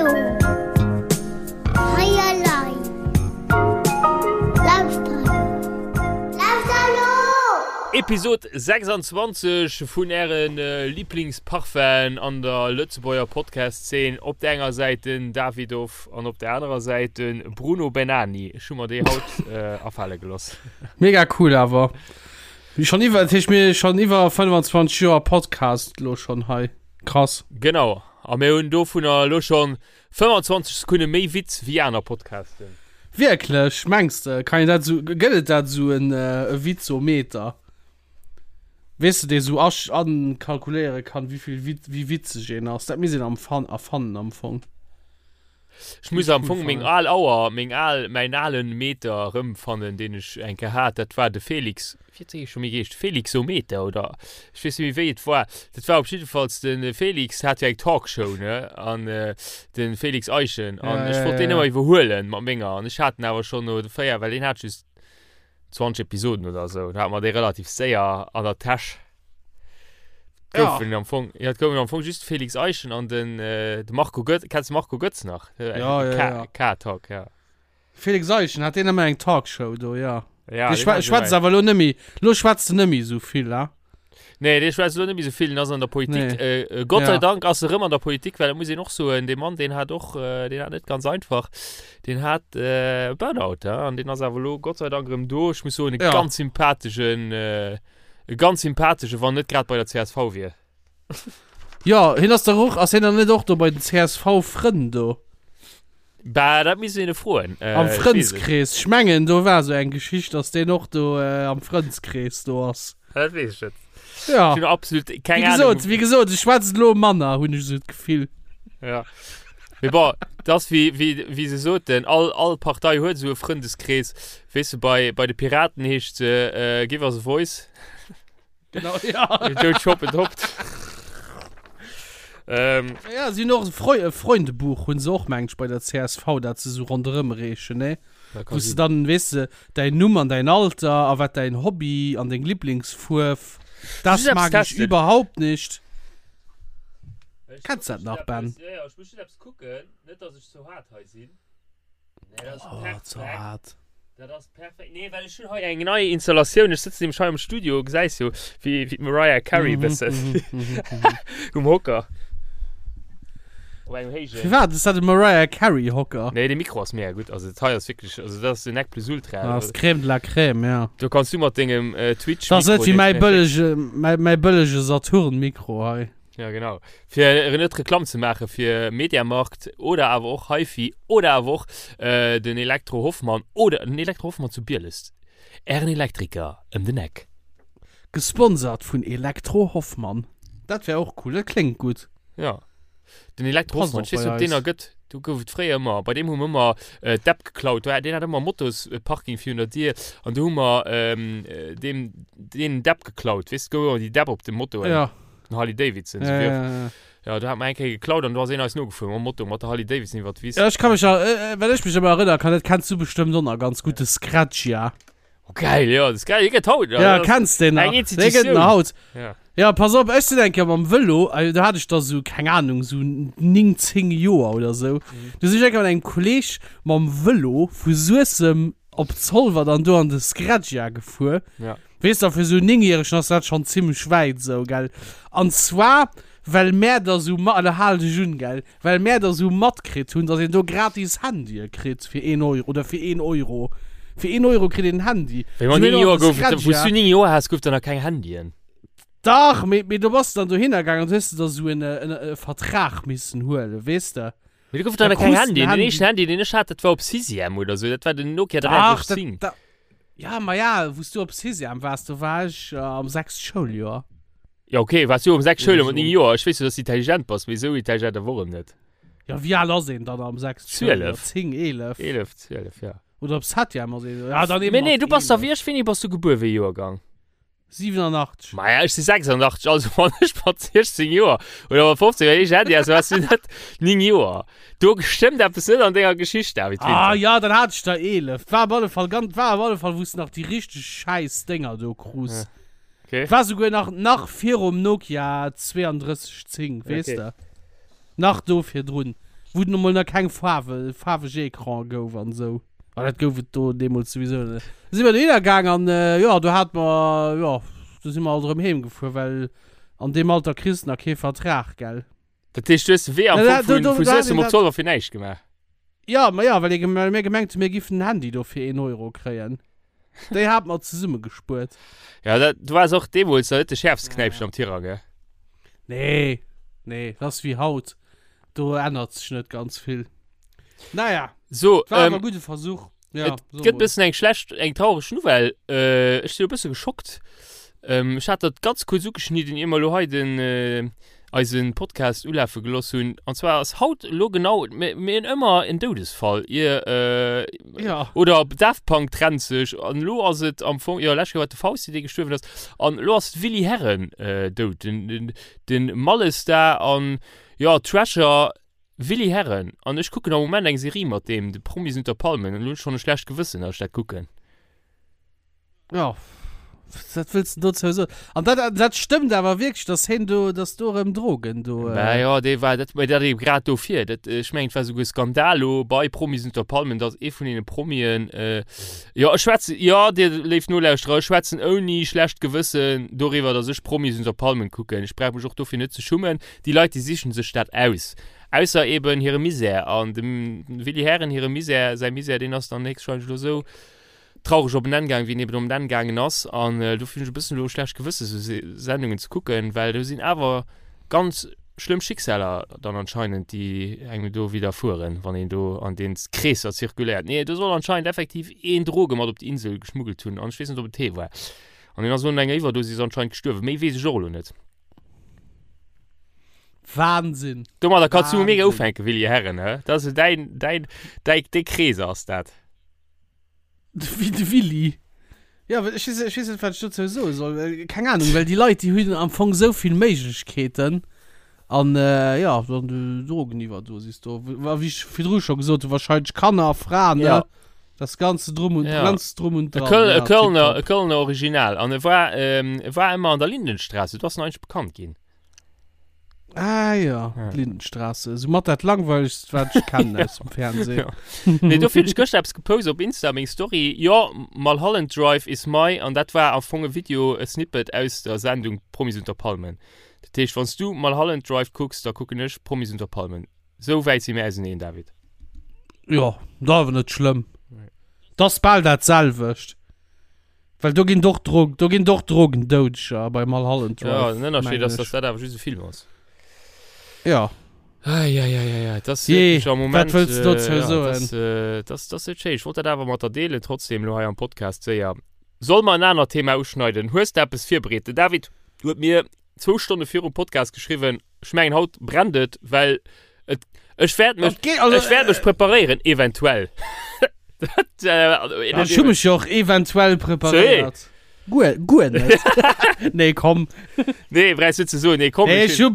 Bruno. Hei elei. Lauschter elo. Lauschter elo! Episod 26 vun ären Liblingsparfum'en an der Lëtzebuerger Podcast-Szene. Op der enger Säit den Davidoff an op der anerer Säit de Bruno Bennani. Ech hu mer déi haut afale geloss. Mega cool awer. Schon iwwer, dat heescht mir schon iwwer 25 Joer Podcast lo schon hei. Krass. Genau, a mir hunn dovunner elo schon 25 Sekunde méi Witz wéi aner Podcasten. Wierklech? Mengs de? Kann een dat esou, gëtt et dat esou en e Witzometer? Weess de, dee esou asch, ankalkuléiere kann, wéivill Wit, wéi witzeg een ass? Dat misst een am fan, erfannen am Fong. Ech muss am Fong meng al Auer, meng al, mäin alen Meter erëmfannen, deen ech eng Kéier hat. Dat war de Felix, wéi huet dee scho méi geheescht? Felixometer oder ech weess net méi wéi et war. Dat war op jiddefalls de Felix hat jo eng Talkshow, ne? An de Felix Eischen. An ech wollt deen ëmmer iwwerhuelen mat menger. An ech hat en awer schonn no 4, well deen hat just 20 Episoden oder esou. Da hat mer dee relativ séier an der Täsch. Ja. Goufen am Fong, ja, et goufen am Fong just Felix Eischen an den, äh, de Marco Götz. Kennst du Marco Götz nach? Ja, ja, ja. K-Talk, ja. Felix Eischen hat deen ëmmer eng Talkshow do, ja. Ja, Dee deen schwä hat schwätzt ëmmer awer lo nëmmi, lo schwätzt en nëmmi esou vill, ha? Nee, dee schwätzt elo net méi esou vill, den ass an der Politik. Nee. Äh, äh, Gott sei Ja. Dank ass e rëm an der Politik, well dat muss een och soen, dee Mann, deen hat och, äh, deen hat net ganz einfach. Deen hat äh, Burnout, ja, an deen ass awer elo Gott sei Dank rëm do. Ech muss soen, e Ja. ganz sympatheschen, äh, e ganz sympathesche, wann net grad bei der CSV wier. Jo, hien ass dach och, ass hien dann net och do bei den CSV-Frënn do? Bah, dat misst een e froen. Äh, Am ech weess et. Frëndskrees. Ech mengen, do war esou eng Geschicht, dass deen och do äh, am Frëndskrees do ass. Dat weess ech net. Ja. Ech hunn absolut keng Wéi gesot, Ahnung. wéi gesot, ech schwätz elo manner, hunn ech esou d'Gefill. Ja. Mee bon, dat ass wéi, wéi, wéi se soten, all, all Partei huet esou e Frëndeskrees. Weess de, bei, bei de Piraten heescht se äh, Give us a voice. Genau, ja. Don't shop adopt. ähm, Ja, si hunn och e Freu e Freundebuch hunn se och, mengt ech, bei der csv, dat se esou ronderëm reechen, ne? dat Wou kann s de sinn. dann, weess de, däin Numm an däin Alter a wat däin Hobby an deng Lieblingsfuerf. Das Just eppes mag ich testen. überhaupt nicht. Ech Kenns muss dat nach, just Ben? eppes- Ja, ja, ech muss just eppes kucken, net dass ech zu haart hei sinn. Nee, dat ass Oh, perfekt. ze haart. Dat ass perfekt. Nee, well ech hunn hei eng nei Installatioun. Ech sëtzen nämlech hei am Studio, gesäis jo, wéi, wéi d'Mariah Carey Mhm, bëssen mhm, mhm, mhm. um Hocker. Op engem héijen. Firwat? Ass dat e Mariah Carey Hocker? Nee, de Mikro ass mega gutt. Also dat hei ass wierklech, also dat ass den Nec plus Ultra. Ah, ass d'Crème de la Crème, ja. Do kanns du mat dengem äh, Twitch Dat ass net Mikro wéi mäi deen- bëllege, mäi, mäi bëllege Saturn Mikro hei. Ja, genau. Fir net Reklamm ze maache fir Mediamarkt oder awer och HiFi oder awer och äh, den Elektro Hoffmann oder den Elektro Hoffmann zu Bieles. Ären Elektriker ëm den Eck. Gesponsert vun Elektro Hoffmann. Dat wär och cool, dat kléngt gutt. Ja. Den Elektro Passt Hoffmann, och ich weess bei net, ob deen eis. nach gëtt. Do gouf et fréier ëmmer, bei deem hu mer ëmmer äh, d'App geklaut. Do hat- Deen hat ëmmer Motosparking virun der Dier an do hu mer ähm, äh, deem deen d'App geklaut. Weess du, gouf ëmmer déi D'app op de Motoen. Ja. Den Harley Davidson. Ja, So ja, ja. ja, do hat mer eng Kéier geklaut an do ass een eis nogefuer mam Moto mat der Harley Davidson iwwer d'Wiss. Ja, ech kann mech, äh, well ech mech ëmmer erënnere kann, dat kenns du bestëmmt och nach ganz gutt, de Scratch, ja. Oh, geil, ja, das ist geil. Hier gëtt haut. Ja, kenns den nach? Eng Dee gëtt Institutioun. nach haut. Ja. Ja, pass op, ech sinn eng Kéier mam Vëlo, äh, do hat ech da sou, keng Ahnung, sou 9, 10 Joer oder sou. Mhm. Du sinn ech eng Kéier mat engem Kolleg mam Vëlo vu Suessem op Zolwer dann do an de Scratch-Jahr gefuer. Ja. Weess der, fir sou Néngjäregen ass dat schonn zimmlech wäit sou, gell? An zwar, well mär da sou ma-, elo hal dech un, gell, well mär da sou matkritt hunn, dass een do gratis Handye kritt fir een Euro, oder fir een Euro. Fir een Euro kritt een en Handy. Wéi mat Sinn mir 9 do an Joer de gouf et, wou s Scratch-Jahr. du 9 Joer has, gouf et der nach keng Handyen. Dach, mee, mee do bass de dann dohinner gaangen an du hues de da sou en, en, e Vertrag missen huelen, weess de? Mee do gouf et der Da nach keng krus de en Handyen. Den Handy. éischten Handy, deen ech hat, dat war op Sixième oder sou. Dat war den Nokia Dach, dat, 3310. dat, Ja, ma ja, wou s du op Sixième waars, do war ech am sechste Schouljoer. Ja, okay, waars du am sechste Oder Schouljoer mat so. 9 Joer? Ech weess jo, dass du intelligent bass, mee esou intelligent awer och erëm net. Ja, wéi al ass een dann am sechste Schouljoer? 12. 10, 11? 11, 12, ja. Oder op Septième ass een, ja, dann eben Mee nee, mat du bass da 11. wéi ech, wéini bass du gebuer, wéi Joergang? 87. Maja, ech si 86, also wann ech mat 16 Joer oder mat 15 Joer eischt Handy has, waars du net 9 Joer. Do stëmmt eppes net an denger Geschicht, David Ah Winter. ja, dann hat ech der 11. War op alle Fall ganz, war op alle Fall, wou s de nach déi richteg schäiss Dénger do krus. Okay. War souguer nach, nach virum Nokia 3210, weess Okay. de. Nach do virdrun. Wou et emol nach keng Faarwe, faarweg Ecran gouf an esou. Ah, dat gouf et do deemools souwisou net. Da si mer dohinner gaang an, jo, do hate mer, jo, do si mer alt erëm heem gefuer, well an deem Alter kriss de nach kee Vertrag, gell. Dat heescht, du hues de Wee am Ja, Fong do, vun, do, vu do hat Suessem een op dat. Zolwer fir näischt gemaach? Ja, ma ja, well ee, well mir gemengt hunn, mir giffen den Handy do fir een Euro kréien. Déi hate mer zesummegespuert. Ja, dat, du waars och deemools nach net de schäerfste Knäipchen am Tirang, gell? Nee, nee, dat ass wéi haut. Do ännert sech net ganz vill. Naja, So, war ähm, awer gudde Versuch. Ja, et so gëtt mol. bëssen eng schlecht, eng traureg Nouvelle. Äh, ech sinn e bësse geschockt. Ähm, ech hat dat ganz kuerz ugeschnidden, ier mer elo hei den, äh, eisen Podcast ulafe geloss hunn. An zwar ass haut elo genau, mir, mir hunn ëmmer en Doudesfall, ier, äh, Ja. oder Daft Punk trennt sech. An elo ass et am Fong, jo, lescht Kéier war et de Fausti, dee gestuerwen ass. An elo ass d'Willy Herren, äh, dout, den, den, den Mallestar an, Jo, Treasure, Willy Herren. An ech kucken am Moment eng Serie mat deem, de Promis unter Palmen, an elo hunn ech schonn e schlecht Gewëssen, datt ech dat kucken. Jo, wat wëlls de dozou soen? An dat, dat stëmmt awer wierklech, datt heen do, datt do erëm Drogen do. Mä jo, dee war, dat, mä dat ebe grad dofir. Dat, ech mengen, et war souguer Skandal lo bei Promis unter Palmen, datt ee vun deene Promien, jo, ech schwätzen, jo, dir léif Nolauschterer, ech schwätzen ouni schlecht Gewëssen doriwwer, datt ech Promis unter Palmen kucken. Ech brauch mech och dofir net ze schummen. Déi Leit, déi sichen sech dat aus. Ausser eben hire Misär. An dem Willy Herren hire Misär, säi Misär, deen ass dann héchstwahrscheinlech elo esou traureg op en Enn gaangen, wéi en eben op en Enn gaangen ass. An dofir hunn ech e bëssen elo e schlecht Gewësse sou Sendungen ze kucken, well do sinn awer ganz schlëmm Schicksaler dann anscheinend, déi engem do widderfueren, wann een do an den Kreesser zirkuléiert. Nee, do soll anscheinend effektiv een Droge mat op d'Insel geschmuggelt hunn an ech weess net, ob et hee war. An deen ass elo un enger Iwwerdosis anscheinend gestuerwen. Méi weess ech och elo net. Wahnsinn. Domadder kannst du mega Wahnsinn. ufänken, Willi Herren, hä? Das ist dein, dein, dein, dei Krees ass dat. Wéi de Willi. Ja, well ech weess, ech weess net, wat ech dozou soe soll. Well, keng Ahnung, well déi Leit, déi hunn am Fong esou vill Méiglechkeeten. An, äh, ja, dann déi Drogeniwwerdosis do. Wa wéi ech virdru scho gesot hunn, wahrscheinlech Kanner, Fraen, ne? Ja. Das ganze Drum und, Ja. ganz Drum und E Dran. Köl, ja, e Kölner, tipptopp. e Kölner Original. An e war, ähm, e war ëmmer an der Lindenstraße. Do ass en eigentlech bekannt ginn. Ah ja, Ja. d'Lindenstraße. Sou mat dat langweiligst, wat ech kennen aus dem Fernsehen. Ja. Nee, dofir hunn ech gëschter eppes gepost op Insta, meng Story. Jo, Mulholland Drive is my, an dat war am Fong e Video, e Snippet aus der Sendung Promis unter Palmen. Dat heescht, wann s du Mulholland Drive kucks, da kucken ech Promis unter Palmen. Sou wäit si mir auseneen, David. Jo, dat awer net schlëmm. Dat ass bal dat selwecht. Well do ginn et och Drog, do ginn et och Drogendoudeger bei Mulholland Drive. Ja, den Ënnerscheed mengen ass, dass ech. dat awer just e Film ass. Ja. Eieieiei, dat ass Jee, wierklech am Moment. wat wëlls du dozou äh, ja, soen? Dat ass, äh, dat ass, dat ass net schéin. Ech wollt dat awer mat der deelen, trotzdem elo hei am Podcast séier. Soll mer en anert Thema uschneiden? Hues de eppes virbereet? Den David huet mir zwou Stonne virum Podcast geschriwwen, Ech mengen haut brennt et, well et, ech wäert mech, Okay, also, ech wäert mech preparéieren, eventuell. Dat, äh, also, Ech hu mech jo och eventuell preparéiert. Guer, guer net. Nee, komm. Nee, brauchst du ze soen, nee, komm. Nee, ech ech hu,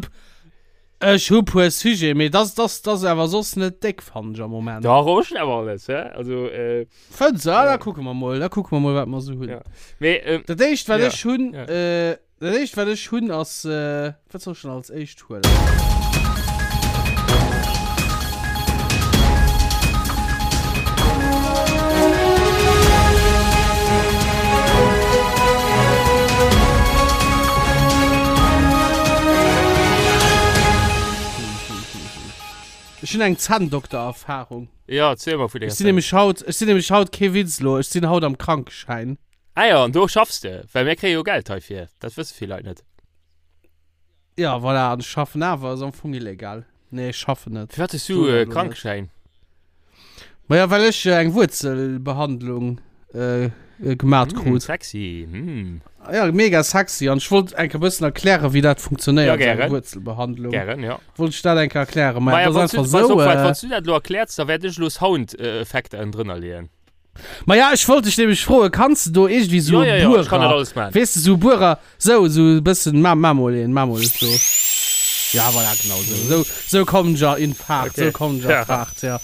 ech hu puer Sujet, mee das, das, das awer soss net déck, fannen ech am Moment. Dach, och schon awer alles, hä? Also, äh, Fënns du? Ah, da kucke mer mol, da kucke mer mol, wat mer sou hunn. Ja. mee, ähm, Dat éischt, wat Ja, ech hunn, ja. äh, Dat éischt wat ech hunn ass, wat soll ech denn als éischt huelen? Ech hunn eng Zänndoktererfahrung. Ja, erziel mer vun denger Ech sinn nämlech haut, ech sinn nämlech haut, kee Witz elo, ech sinn haut am Krankeschäin. Ah jo, an do schaffs de? Well mir kréie jo Geld heifir, dat wësse vill Leit net. Ja, voilà, an ech schaffen awer, ass am Fong illegal. Nee, ech schaffen net. Firwat hues du Soen e elo net. Krankeschäin? Maja, well ech eng Wuerzelbehandlung äh, gemat Mm, krut. sexy, mm. Ja, mega sexy. An ech wollt eng Kéier bëssen erklären, wéi dat funktionéiert, Ja, esou eng gären. Wuerzelbehandlung. Gären, ja. Wollt ech dat eng Kéier erklären. Maja, Maja, dat wann ass du, einfach pass esou. op, Äh, wann du dat elo erkläerts, da wäert ech elo Soundeffekter ënnendrënner leeën. Maja, ech wollt dech nämlech froen, kanns de do iergendwéi sou Ja, ja, e ja, ech kann dat Buerer, alles maachen. weess de, sou e Buerer, sou, sou e bëssen, ma, ma mol een, ma mol sou. Ja, voilà, genau sou, sou, sou kommen ech a in Fahrt, Okay. sou kommen ech a Ja. Fahrt, ja.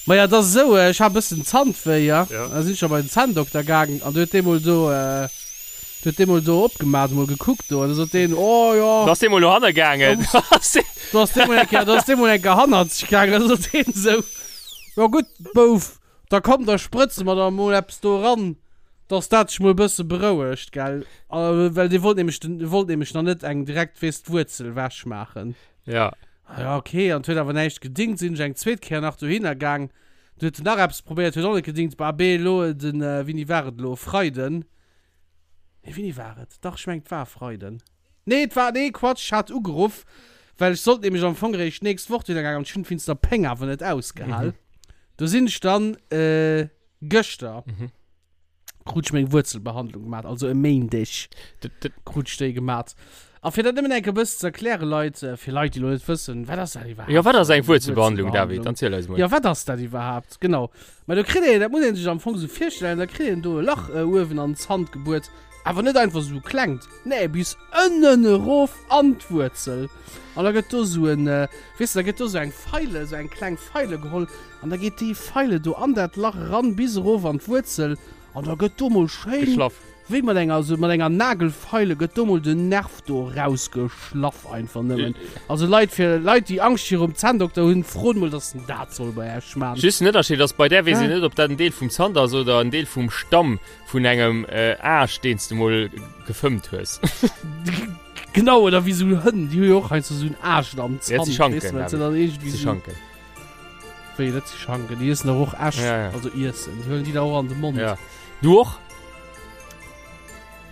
Maja, et ass esou, ech hat e bëssen Zandwéi, ja, Ja. da sinn ech da bei den Zänndokter gaangen an du huet dee mol do, da. Huet dee mol do opgemaat, mol gekuckt do, an da sot deen, oh jo. Da ass dee mol no hanne gaangen. Do ass dee mol eng Kéier, do ass dee mol eng Kéier hannerzeg gaangen, da sot deen esou, jo gutt, Bouf, da komm, da sprëtze mer der mol eppes do eran, dass dat sech mol e bësse berouegt, gell. A well dee wollt nämlech den, wollt nämlech nach net eng direkt, weess, d'Wuerzel wechmaachen. Ja. Ah ja, okay, an et huet awer näischt gedingt, sinn ech eng zweet Kéier nach dohinner gaang, du huet en nach eppes probéiert, huet och net gedingt. Bah, abee, elo den, wéini war et elo, e Freiden, Nee, wéini war et? Dach, ech mengen, et war e Freiden. Nee, et war, nee, Quatsch, ech hat ugeruff, well ech sollt nämlech am Fong eréischt d'nächst Woch dohinner gaangen an ech hunn et wéinst der Péng awer net ausgehal. Do sinn ech dann gëschter, krut ech meng Wuerzelbehandlung gemat, also e Méindeg krut ech déi gemat. A fir dat nëmmen eng Kéier e bëssen ze erklären, Leit, fir Leit, déi elo net wëssen, wat ass dat iwwerhaapt? Jo, wat ass eng Wuerzelbehandlung, David? Erziel eis mol. Jo, wat ass dat iwwerhaapt? Genau. Mä do kritt een, dat muss ee sech am Fong esou virstellen, da kritt een do e Lach uewen an den Zant gebuert, awer net einfach esou e klengt, nee, bis ënnen erof an d'Wuerzel. An da gëtt do esou en, weess de, da gëtt do esou eng Feile, esou eng kleng Feile geholl an da geet déi Feile do an dat Lach eran bis erof an d'Wuerzel an da gëtt do mol schéin. Geschlaff. Wéi mat enger, sou mat enger Nagelfeile gëtt do mol den Nerv do rausgeschlaff einfach nëmmen. Also Leit, fir Leit déi Angscht virum Zänndokter hunn, frot mol dass en dat soll bei Äech man. Just den Ënnerscheed ass, bei där weess een net ob dat en Deel vum Zant ass oder en Deel vum Stamm vun engem Aascht deen s de mol gefëmmt hues. Genau, oder wéi sou Hënn, déi hu jo och heiansdo sou en Aascht am Zant, weess de, well se dann iergendwéi sou. Wéi, dat si Schanken, déi iessen dach och Äscht, Ja, ja. also iessen, déi huelen déi da och an de Mond. Ja. Du och?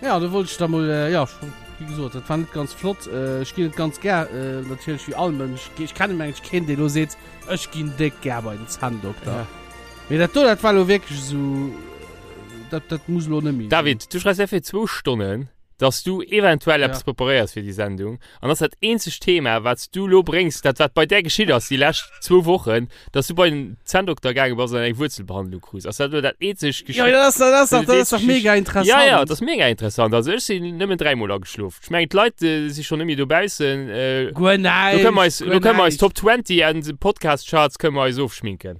Ja, do wollt ech da mol, äh, ja, wéi gesot, dat war net ganz flott. Äh, ech ginn et ganz gär, äh, natierlech wéi all Mënsch. Ech kennen mengen ech keen, dee lo seet, ech ginn déck gär bei den Zänndokter. Ja. Mee dat do, dat war lo wierklech esou, dat, dat muss lo net méi sinn. David, du schreifs fir zwou Stonnen, dass du eventuell Ja. eppes preparéiers fir déi Sendung an ass dat eenzegt Thema, wat s du lo bréngs, dat wat bei där geschitt ass déi lescht zwou Wochen, dass du bei den Zänndokter gaange bass an eng Wuerzelbehandlung krus. Ass dat lo dat eenzegt Ja, Geschicht? dat ass, dat ass dach, Dat dat ass dach eenzegt mega interessant. Ja, ja, dat ass mega interessant. Also ech sinn nëmmen dräimol ageschlof. Ech mengen d'Leit äh, si schonn net méi dobaussen. Äh, Guer lo kënne mer näischt, eis, guer lo kënne mer eis näischt. Top 20 an Podcast Charts kënne mer eis ofschminken.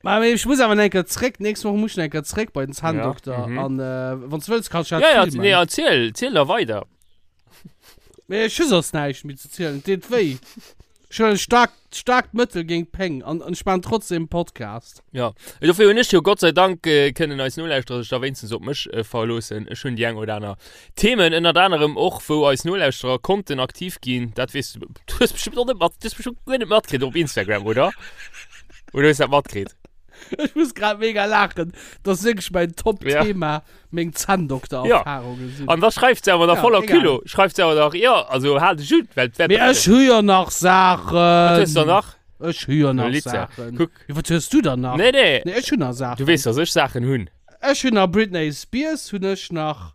Ma mee ech muss awer eng Kéier zréck, nächst Woch muss ech eng Kéier zréck bei den Zänndokter. Ja, mhm. An äh, wann du wëlls, kannst du dat Ja, ja, filmen. nee, erziel, erziel da weider. Mee ech hu soss näischt méi ze zielen, et deet wéi. Ech huelen staark, staarkt Mëttel géint d'Péng an, an ech maachen trotzdem Podcast. Ja, dofir hunn ech jo Gott sei Dank äh, kënnen eis Nolauschterer sech da wéinstens op mech äh, verloossen. Ech hunn déi eng oder aner Themen, ënnert anerem och, wou eis Nolauschterer konnten aktiv ginn. Dat weess du, du hues bestimmt och net mat, du hues bestimmt guer net matkritt op Instagram, oder? Oder hues dat matkritt? Ech muss grad mega laachen. Dat ass wierklech mäin Top-Thema, meng Zänndokter-Erfahrungen sinn. An da schreift se awer da Ja, voller egal. Culot, schreift se awer nach, jo, also hal dech un, well et wäert Mee ech hu jo nach Saachen. Wat hues du dann nach? Ech hu jo nach Lizza, Saachen. kuck. Jo, wat hues du dann nach? Nee, nee. Nee, ech hunn nach Saachen. Du weess, dass ech Saachen hunn. Ech hunn nach Britney Spears hunn ech nach.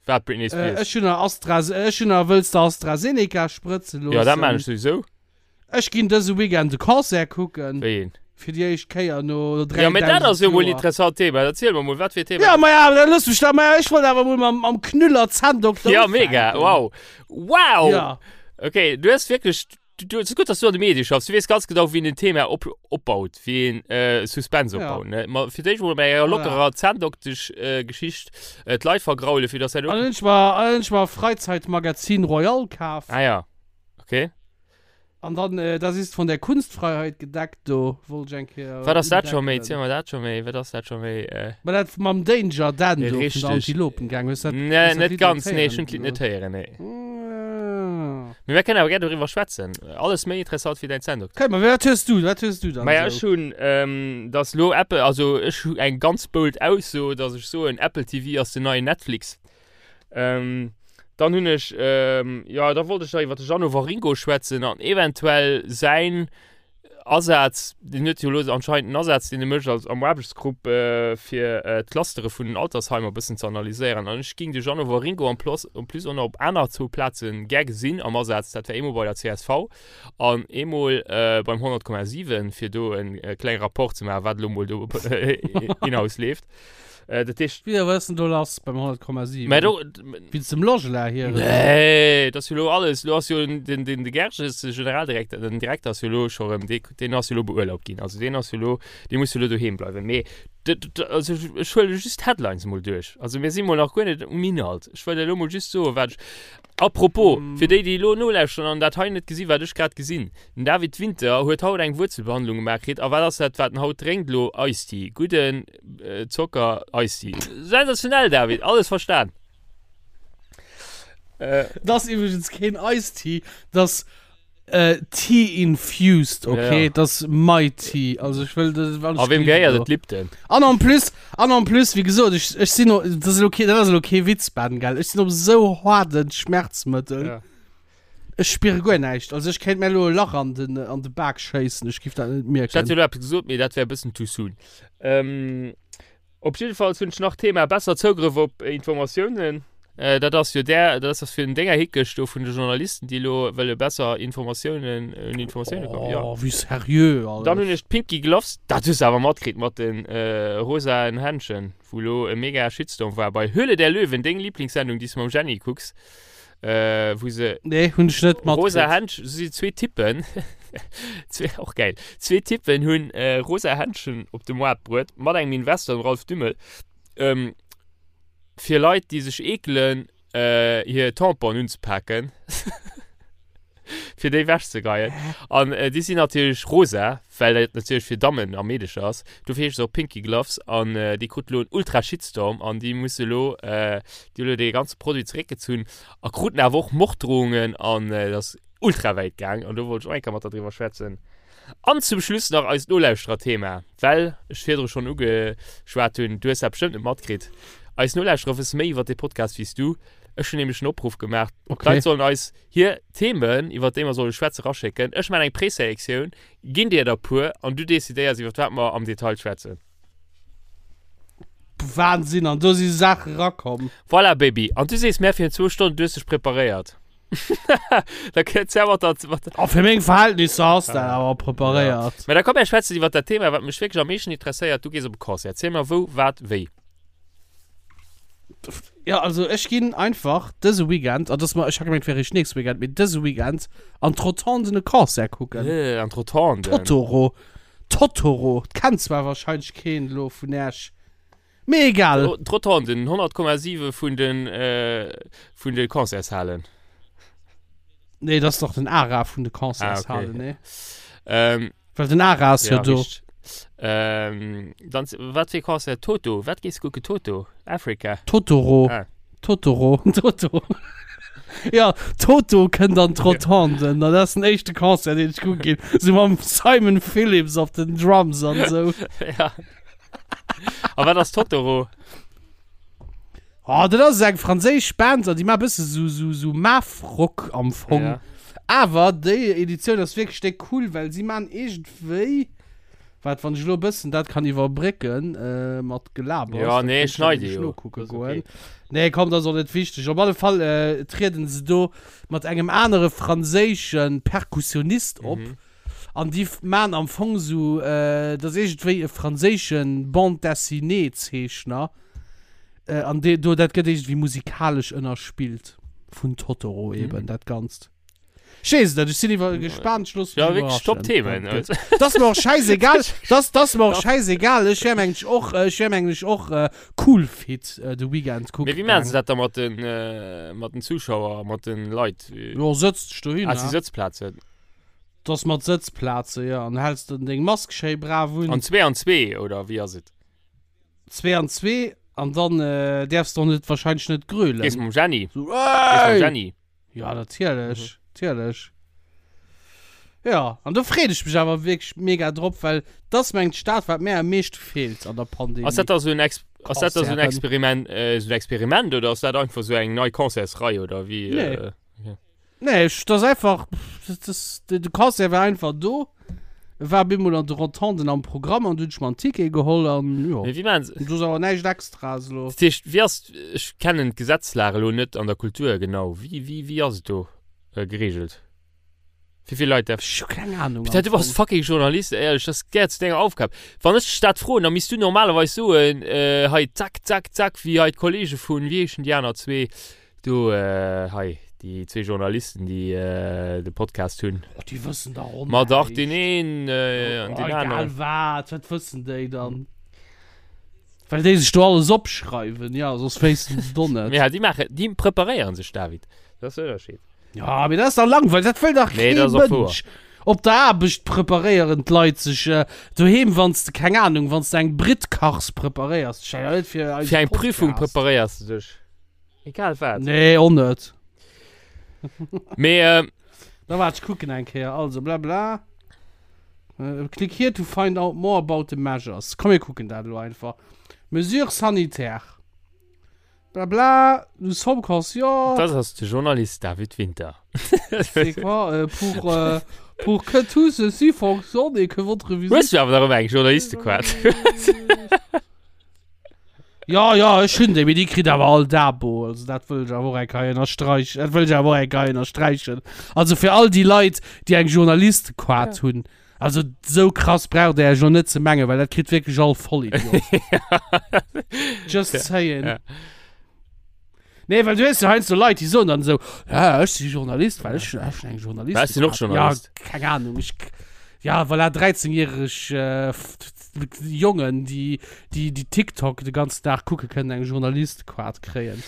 Wat Britney Spears? Äh, ech hunn nach Astra, ech hunn nach wëlls de AstraZeneca sprëtze loossen? Ja, dat maan ech souwisou. Ech ginn dëse Weekend e Concert kucken. Wéi een? Fir déi éischt Kéier no 3000 Ja, mee dat ass jo mol Joer. interessant Thema. Erziel mer mol, wat fir Thema? Ja, ma ja, da looss mech da, ma ja, ech wollt awer mol mam, mam Knüller Zänndokter Ja, mega, ufänken. wow. Wow! Ja. Okay, du hues wierklech Du, du, et ass gutt, dass du an de Medie schaffs. Du weess ganz genau, wéi een en Thema op, opbaut, wéi een äh, Suspense Ja. opbaut. Ne? Ma fir d'éischt mol bei enger Voilà. lockerer Zänndoktesch-Geschicht äh, Geschicht, äh, d'Leit vergraule, fir dass dat An dann hunn ech mer, an dann hunn ech mer Freizeitmagazin Royal kaf. Ah ja, okay. An dann, äh, das ist von der Kunstfreiheit gedeckt, do wollt ech eng Kéier Wat ass dat scho méi? undeckelen. Ziel mer dat scho méi. Wat ass dat scho méi? Äh, Ma dat mam Danger Dan do vun der Richtig. Antilopengang, hues dat, nee, hues dat net Lidd net ganz. Nee, ech héieren? hunn d'Lidd net héieren, nee. Mm. Mee mir kënnen awer gär doriwwer schwätzen. Alles méi interessant wéi däin Zänndokter. Okay, ma wat hues du, wat hues du dann Maja, esou? ech hunn, ähm, dass lo Apple, also ech hu eng ganz bold Ausso, dass ech soen, Apple TV ass den neien Netflix. Ähm, dann hunn ech, ähm, jo, da wollt ech nach iwwer de Jeannot Waringo schwätzen an eventuell säin Asaz, deen huet jo elo anscheinend en Asaz, deen e mécht als am Aarbechtsgrupp, fir d'Clustere vun den Altersheimer e bëssen ze analyséieren. An ech géing de Jeannot Waringo en plus, en plus och nach op aner zwou Plaze gär gesinn am Asaz. Dat wär eemol bei der csv an eemol beim 100,7, fir do e klenge Rapport ze maachen, wat elo mol do in-house leeft. Äh, dat heescht. Wéi, wat ass denn do lass beim 100,7? Mä do. Wéinst dem Logela hier? Nee, dat ass jo lo alles. Lo ass jo den, den, de Gerges, de Generaldirekter, den Direkter ass jo lo scho rëm, dee, deen ass jo lo beurlaubt ginn. Also deen ass jo lo, dee muss jo lo doheem bleiwen. Mee. Also ech huele just d'Headlines emol duerch. Also mir si mol nach guer net um Inhalt. Ech wëll elo mol just soen, wat ech. Apropos, fir déi, déi elo nolauschteren an dat hei net gesinn, wat ech grad gesinn, Den David Winter huet haut eng Wuerzelbehandlung gemaach kritt. A wat ass dat, wat en haut drénkt elo? Eistee. Gudden Zocker, Eistee. Sensationell, David, alles verstan. Dat ass iwwregens keen Eistee, dat ass Tea infused, ok? Ja, ja. Dat ass my tea. Also ech wëll dat alles. A wem gehéiert et? Lipton. An en plus, an en plus, wéi gesot, ech, ech sinn, dat ass elo kee, dat ass elo kee Witz, Ben, gell? Ech sinn op esou haarde Schmerzmëttel. Ja. Ech spiere guer näischt. Also ech kéint mir elo e Lach an den, an de Bak schéissen, ech giff dat net mierken. Ech hätt jo elo eppes gesot, mee dat wär e bëssen too soon. Ähm. Op jiddefalls hunn ech nach Thema besser Zougrëff op Informatiounen. Dat ass jo där, dat ass fir den Dénger Hickesch do vun de Journalisten, déi elo wëlle besser Informatiounen, un Informatioune kommen. Jo. Oh, wéi seriö alles. Dann hunn ech d'Pinky Gloves, dat hues de awer matkritt mat de rosaen Händschen, wou elo e mega Shitstorm war bei Höhle der Löwen, deng Lieblingssendung, déi s de mam Jenny kucks. Äh, wou se. Nee, hunn ech net matkritt. Rosa Händschen, si zwee Typen, zwee, och geil, zwee Typen hunn äh, rosa Händschen op de Moart bruet, mat engem Investor, dem Ralph Dümmel, ähm, fir Leit, déi sech eekelen, äh, hir Tamponen unzepaken, fir déi wechzegeien. An äh, déi sinn natierlech rosa, well dat natierlech fir Dammen a Meedecher ass. Dofir heescht se och Pinky Gloves an déi krut elo en ultra Shitstorm an déi musse elo, déi hu elo dee ganze Produit zeréckgezunn a kruten awer och Morddrohungen an et ass ultra wäit gaang an do wollt ech och eng Kéier mat der driwwer schwätzen. An zum Schluss nach eist Nolauschtererthema, well ech virdru schonn ugeschwat hunn, du hues dat bestëmmt net matkritt, eis Nolauschterer wësse méi iwwer dee Podcast wéi s du. Ech hunn nämlech en Opruff gemaach, d'Leit sollen eis hir Themen, iwwer déi mer solle schwätzen, raschécken. Ech maachen eng Preselektioun, ginn dir der puer an du decidéiers, iwwer wat mer am Detail schwätzen. Wahnsinn, an do si Saache rakomm. Voilà, Baby. An du sees mär virun zwou Stonnen, du hues dech preparéiert. Da kënns ja mat der, mat der. Oh, fir meng Verhältnisser ass dat awer preparéiert. Ja. Mä da komm, mär schwätzen iwwer dat Thema, wat mech wierklech am meeschten interesséiert. Du gees op e Concert. Erziel mer wou, wat, wéi. Ja, also ech ginn einfach dëse Weekend, an dass mer, ech hat gemengt, wär eréischt nächste Weekend, mee dëse Weekend an d'Rotonden e Concert kucken. Äh, an d'Rotonden. Totoro. Totoro. Kennt zwar wahrscheinlech keen elo vun Äech, mee egal. D'Rotonden, 100,7 vun den, äh, vun de Concertshalen. Nee, dat ass dach den ARA vun de Concertshalen, ah, okay. nee? Ähm, Well den Ara ass jo do. Richteg. Ähm, dann, wat fir Concert? Toto? Wat gees kucken? Toto? Africa? Totoro. Ah. Totoro. Toto. Ja, Toto kënnt an d'Rotonden. Ja. Dat ass den éischte Concert, deen ech kucke ginn. Sou mam Simon Phillips op den Drums an sou. Ja. A wat ass Totoro? Oh, dat ass eng franséisch Band an déi maache bësse sou, sou, sou Math-Rock am Fong. Ja. Awer déi Editioun ass wierklech déck cool, well si maachen iergendwéi, wat, wann ech elo e bëssen dat kann iwwerbrécken äh, mat Gelabers, Ja, da nee, kéint ech dat schneide nämlech jo. nokucke Das ass goen. okay. Nee, komm, dat ass och net wichteg. Op alle Fall äh, trieden se do mat engem anere franséische Perkussionist op. Mhm. An déi maachen am Fong sou, äh, dat ass iergendwéi e franséische Bande-dessinée-Zeechner. Äh, an dee, do, dat gëtt iergendwéi musikalesch ënnerspillt vun Totoro eben, mm. dat Ganzt. Ech weess et net, ech sinn iwwer gespaant, ech loosse mech Ja, wierklech top Themen. Dat ass mer och schäisegal, dat, dat ass mer och schäisegal. Ech wär mengen ech och, ech wär mengen ech och äh, cool fit äh, de Weekend kucke Mee wéi maachen se dat da mat den, äh, mat den Zuschauer, mat den Leit? Jo, sëtz dech dohin. Ah, si Sëtzplazen. Dat ass mat Sëtzplaze, jo. An häls de deng Mask schéi brav un. An zwee an zwee, oder wéi ass et? Zwee an zwee an dann äh, däerfs de och net wahrscheinlech net grölen. Gees mam Jenny? So, Gees mam ey! Jenny? Ja, natierlech, natierlech. Ja, an do freet ech mech awer wierklech mega drop, well dat ass mengt d'Stad, wat mär am meeschte feelt an der Pandemie. Ass dat da sou en Ex ass dat da sou en Concerten. Experiment, äh, sou en Experiment oder ass dat einfach sou eng nei Concertsrei oder wéi? Nee. Äh, okay. Nee, ech, dat ass einfach, dat ass, de Concert war einfach do, e war bemol an de Rotonden am Programm an du hunn ech mer en Ticket geholl an jo. Mee wéi maachen se. Do ass awer näischt Extraes elo. Dat heescht, wéi ass, ech kennen d'Gesetzlag elo net an der Kultur genau, wéi, wéi, wéi ass et do geregelt? Wéi vill Leit däerf. Ech hu keng Ahnung Peter, am du bass Fong. fucking Journalist, éierlech, dat gehéiert zu denger Aufgab. Wann ech dech dat froen, da misst du normalerweis soen, hei zack, zack, zack, wéi hei d'Kollege vun, wéi heeschen déi aner zwee? Do hei, déi zwee Journalisten, déi de Podcast hunn. Oh, déi wëssen dach och Ma dach, deen näischt. een an deen Oh, egal aneren. wat, wat wëssen déi dann? Well déi sech do alles opschreiwen, ja, soss wéissten se et och net. Ja, déi maachen, déi preparéieren sech, David. Dat ass den Ënnerscheed. Ja, mee dat ass dach langweileg, dat wëll dach Nee, kee dat ass och wouer. Mënsch. Op der Aarbecht preparéieren d'Leit sech, äh, doheem, wann s de, keng Ahnung, wann s de eng Britt kachs, preparéiers dech ja net fir eise Fir eng Prüfung Podcast. preparéiers de dech. Egal wat. Nee, och net. Mee, äh, Da waart, ech kucken eng Kéier. Also, bla bla. Äh, click here to find out more about the measures. Komm, mir kucken dat elo einfach. Mesures sanitaires. Bla bla, nous sommes conscients. Das ass de Journalist David Winter. C'est quoi, euh, pour, euh, pour que tout ceci fonctionne et que votre visite. Hues du awer nach ëmmer eng Journalistequart? Ja, ja, ech hunn déi, mee déi kritt awer all d'Abo. Also dat wëll ech awer och eng Keier ënnersträichen. Dat wëll ech awer och eng Keier ënnersträichen. Also fir all déi Leit, déi eng Journalistequart hunn, also sou krass braucht der Iech elo net ze mengen, well dat kritt wierklech all Vollidiot. Just saying. Ja. Nee, well du hues jo heiansdo Leit, déi soen dann esou, ja, ech si Journalist, well ech, ech hunn eng Journalist. Ech sinn och Journalist. Ja, keng Ahnung, ech, ja, voilà, 13-järeg äh, Jongen, déi, déi, déi TikTok de ganzen Dag kucke kënnen eng Journalistequart kréien.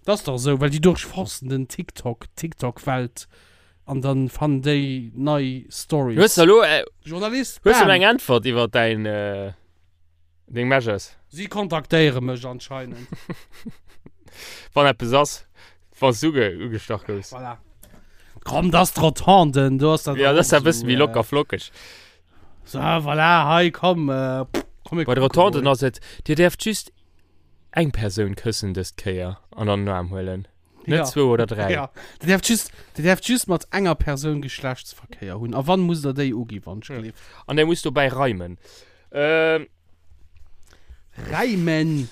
Dat ass dach esou, well déi durchforsten den TikTok, TikTok-Welt an dann fannen déi nei Stories. Hues du elo, äh, Journalist, hues du bam! elo eng Äntwert iwwer däin, äh, Deng Measures. Si kontaktéiere mech anscheinend. Wann eppes ass, wann s du ugestach goufs. Voilà. Komm, dat ass d'Rotonden, do ass dat. Ja, dat ass e bësse méi locker flockeg. So, voilà, hei, komm, äh, komm Bei de Rotonden ass et, Dir däerft just eng Persoun këssen dës Kéier an an den Aarm huelen. Net ja. zwou oder dräi. Ja. Dir däerft just, Dir däerft just mat enger Persoun Geschlechtsverkéier hunn. A wann, musst der déi ugi wann ech gleef. An der muss dobäi reimen. Ähm. Reimen!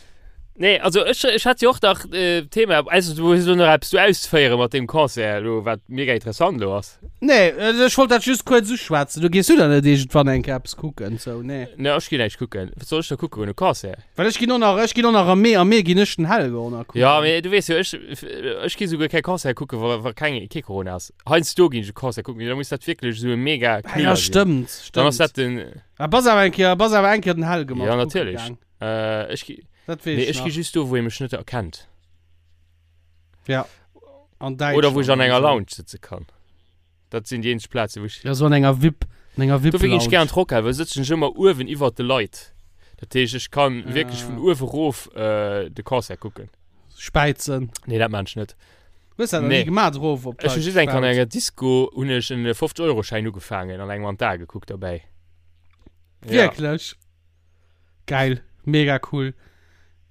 Nee, also ech, ech hat jo och nach äh, Thema, also du hues lo nach eppes do auszuféieren mat deem Concert lo, wat mega interessant lo ass. Nee, also ech wollt dat just kuerz uschwätzen. Du gees du dann net iergendwann eng Kéier eppes kucken, sou, nee. Nee, ech ginn näischt kucken. Wat soll ech da kucken goen, e Concert? Well ech ginn och nach, ech ginn och nach am Mee, am Mee ginn ech den Helge och nach kucken. Ja, mee du weess jo, ech, ech gi souguer kee Concert kucken, wa, wa keng, kee Corona ass. Heiansdo ginn ech e Concert kucken, mee da muss dat wierklech esou e mega Ah, ja, Knüller sinn. stëmmt, Dann ass stëmmt. dat den, Ah, bass awer eng Kéier, bass awer eng Kéier den Helge mat ja, kucke natierlech. gaang. Äh, ech gi, Dat weess nee, ech ech gi nach. just do, wou ee mech net erkennt. Ja. An Oder wou ech Däitschland an enger an esou. Lounge sëtze kann. Dat sinn déi eenzeg Plazen, wou ech. Ja, sou an enger VIP, an enger Dofir ginn ech gär VIP-Lounge. an d'Rockhal, well sëtzen ech ëmmer uewen iwwert de Leit. Dat heescht, ech kann wierklech vun Ah. uewe rof äh, de Concert kucken. Späizen. Nee, dat maan ech net. Hues dat nach ni Nee. gemaat, erof op Ech hu d'Leit just eng Kéier an gespaut? enger Disco hunn ech en 50-Euro-Schäin ugefaangen an engem an d'Ae gekuckt derbäi. Ja. Wierklech? Geil, mega cool.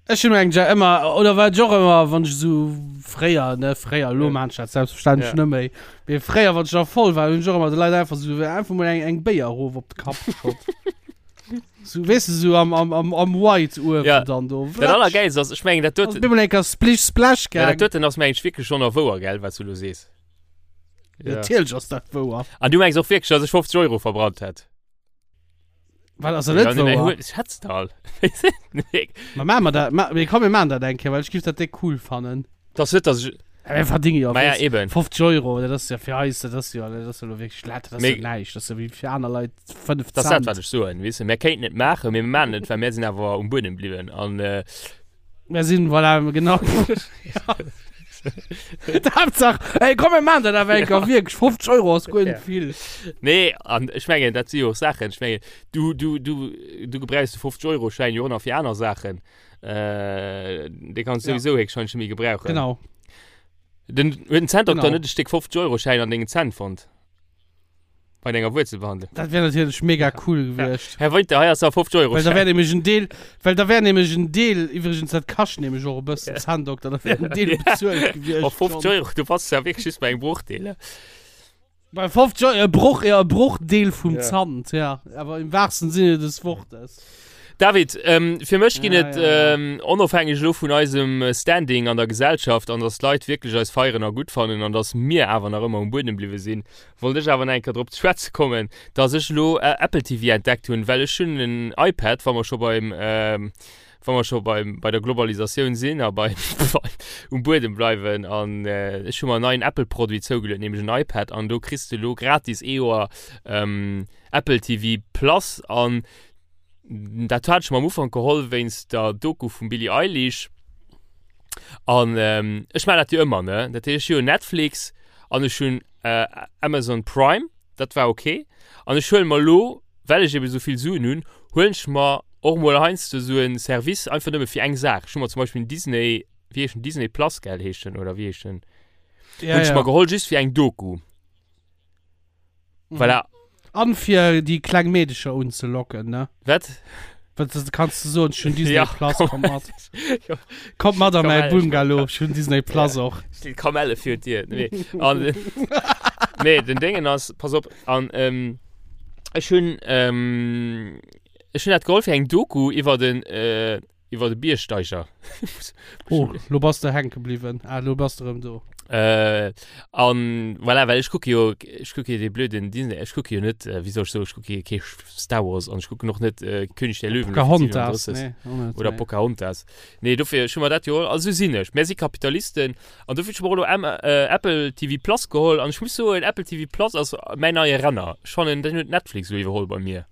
Ech hunn eng ëmmer oder wat ech och ëmmer wann ech esou fréier ne fréier elo Ja. maan ech dat selbstverständlech Ja. net méi mee fréier wann ech nach voll war hunn ech och ëmmer de Leit einfach esou einfach mol eng eng Béier erof op de Kapp geschott. Sou weess de sou am am am am White uewen Ja. dann do Dat wlatsch. allergäilst ass, ech mengen dat Ass doten, bemol eng Kéier splish splash ja, dat gaang. doten ass mengen ech wierklech schonn nach wouer, gell, wat s du elo sees. Ja. Natierlech ass dat wouer. An du mengs och wierklech, dass ech 50 Euro verbrannt hätt? Wat ass dat net Ja, nee, wouer? ech hätt's der all. Nee. Ma maache mer dat, ma, mee komm mir maachen dat eng Kéier, well ech giff dat déck cool fannen. Das net, dass ich. Ja, mir verdinge jo, Ma ja, weess, eben. 50 Euro, dat ass ja fir eis, dat ass jo, dat ass jo lo wierklech dat ass Mee- jo näischt, dat ass jo wéi fir aner Leit 5 Das ist dat, Cent. wat ech soen, weess de. Mir kéinten et maachen, mee mir maachen et, well mir sinn awer um Buedem bliwwen. An, äh, Mir sinn, voilà, genau. D'Haaptsaach, ey, komm, mir maachen dat awer eng Kéier wierklech, 50 Euro ass guer net vill. Nee, an ech mengen, dat si jo och Saachen, ech mengen, du, du, du, du gebrauchs de 50-Euro-Schäin jo och nach fir aner Saachen. Äh, dee kanns du Ja. souwisou héchstwahrscheinlech net méi gebrauchen. Genau. Den, huet den Zänndokter Genau. net e Stéck 50-Euro-Schäin an dengen Zänn fonnt? Bei denger Wuerzelbehandlung? Dat wär natierlech mega cool gewiescht. Här Winter, hei ass der 50 Euro Well da wär Schäin. nämlech en Deel, well da wär nämlech en Deel, iwwregens dat kascht nämlech och e bëssen, Zänndokter, da wär en Deel bezuelt gewiescht Oh, 50 schonn. Euro, du bass ja wierklech just bei engem Brochdeel, ne? Bei 50 Euro, e Broch, ja, e Brochdeel vum Ja. Zant, ja, awer im wahrsten Sinne des Wortes. David, ähm, fir mech ginn Ja, et ja, ja. ähm, onofhängeg elo vun eisem Standing an der Gesellschaft an dass d'Leit wierklech eis feieren a gutt fannen an dass mir awer nach ëmmer um Buedem bliwwe sinn, wollt ech awer nach eng Kéier drop ze schwätze kommen, dass ech elo Apple TV entdeckt hunn, well ech hunn en iPad, wa mer scho beim, wa mer scho beim, bei der Globalisatioun sinn a beim, um Buedem bleiwen an ech hu mer en neien Apple-Produit zougeluet, nämlech en iPad an do kriss de elo gratis ee Joer Apple TV Plus an. Dat hat ech mer am Ufank geholl wéinst der Doku vum Billie Eilish. An ähm, ech maachen dat jo ëmmer, ne? Dat heescht, ech hu jo Netflix an ech hunn äh, Amazon Prime, dat war okay. An ech huele mer elo, well ech eben esou vill Suen hunn, huelen ech mer och mol heiansdo esou en Service einfach nëmme fir eng Saach. Ech hu mer zum Beispill den Disney, wéi heescht den, Disney Plus, gell, heescht den, oder wéi heescht den? Ja, Hunn ech ja. mer geholl just fir eng Doku. Mhm. Voilà. An fir déi kleng Meedecher unzelocken, ne? Wat? Wat das kannst du soen, ech hunn Disney Ja, Plus, komm. komm mat. Ja. Kommt mat an mäi Kamelle, Bungalow, ech hunn Disney Plus och. Steet Kamelle fir d'Dier. Nee. An, nee, den Déngen ass, pass op, an ähm, ech hunn ähm, ech hunn dat geholl fir eng Doku iwwer den äh, Iwwer de Biergsteiger. Oh, lo bass de hänke bliwwen. Ah, lo bass de rëm do. Äh, an voilà, well ech kucke jo, ech kucke jo dee blöden Disney, ech kucke jo net, äh, wéi soll ech soen, ech kucke jo kee Star Wars an ech kucken och net äh, König der Löwen oder Pocahontas, 37. nee, och net, Oder nee. Pocahontas. Nee, dofir, ech hu mer dat jo, also sou sinn ech. Mär si Kapitalisten an dofir hu ech mer och elo M äh, Apple TV Plus geholl an ech muss soen, Apple TV Plus ass mäin neie Renner. Ech fannen, den huet Netflix elo iwwerholl bei mir.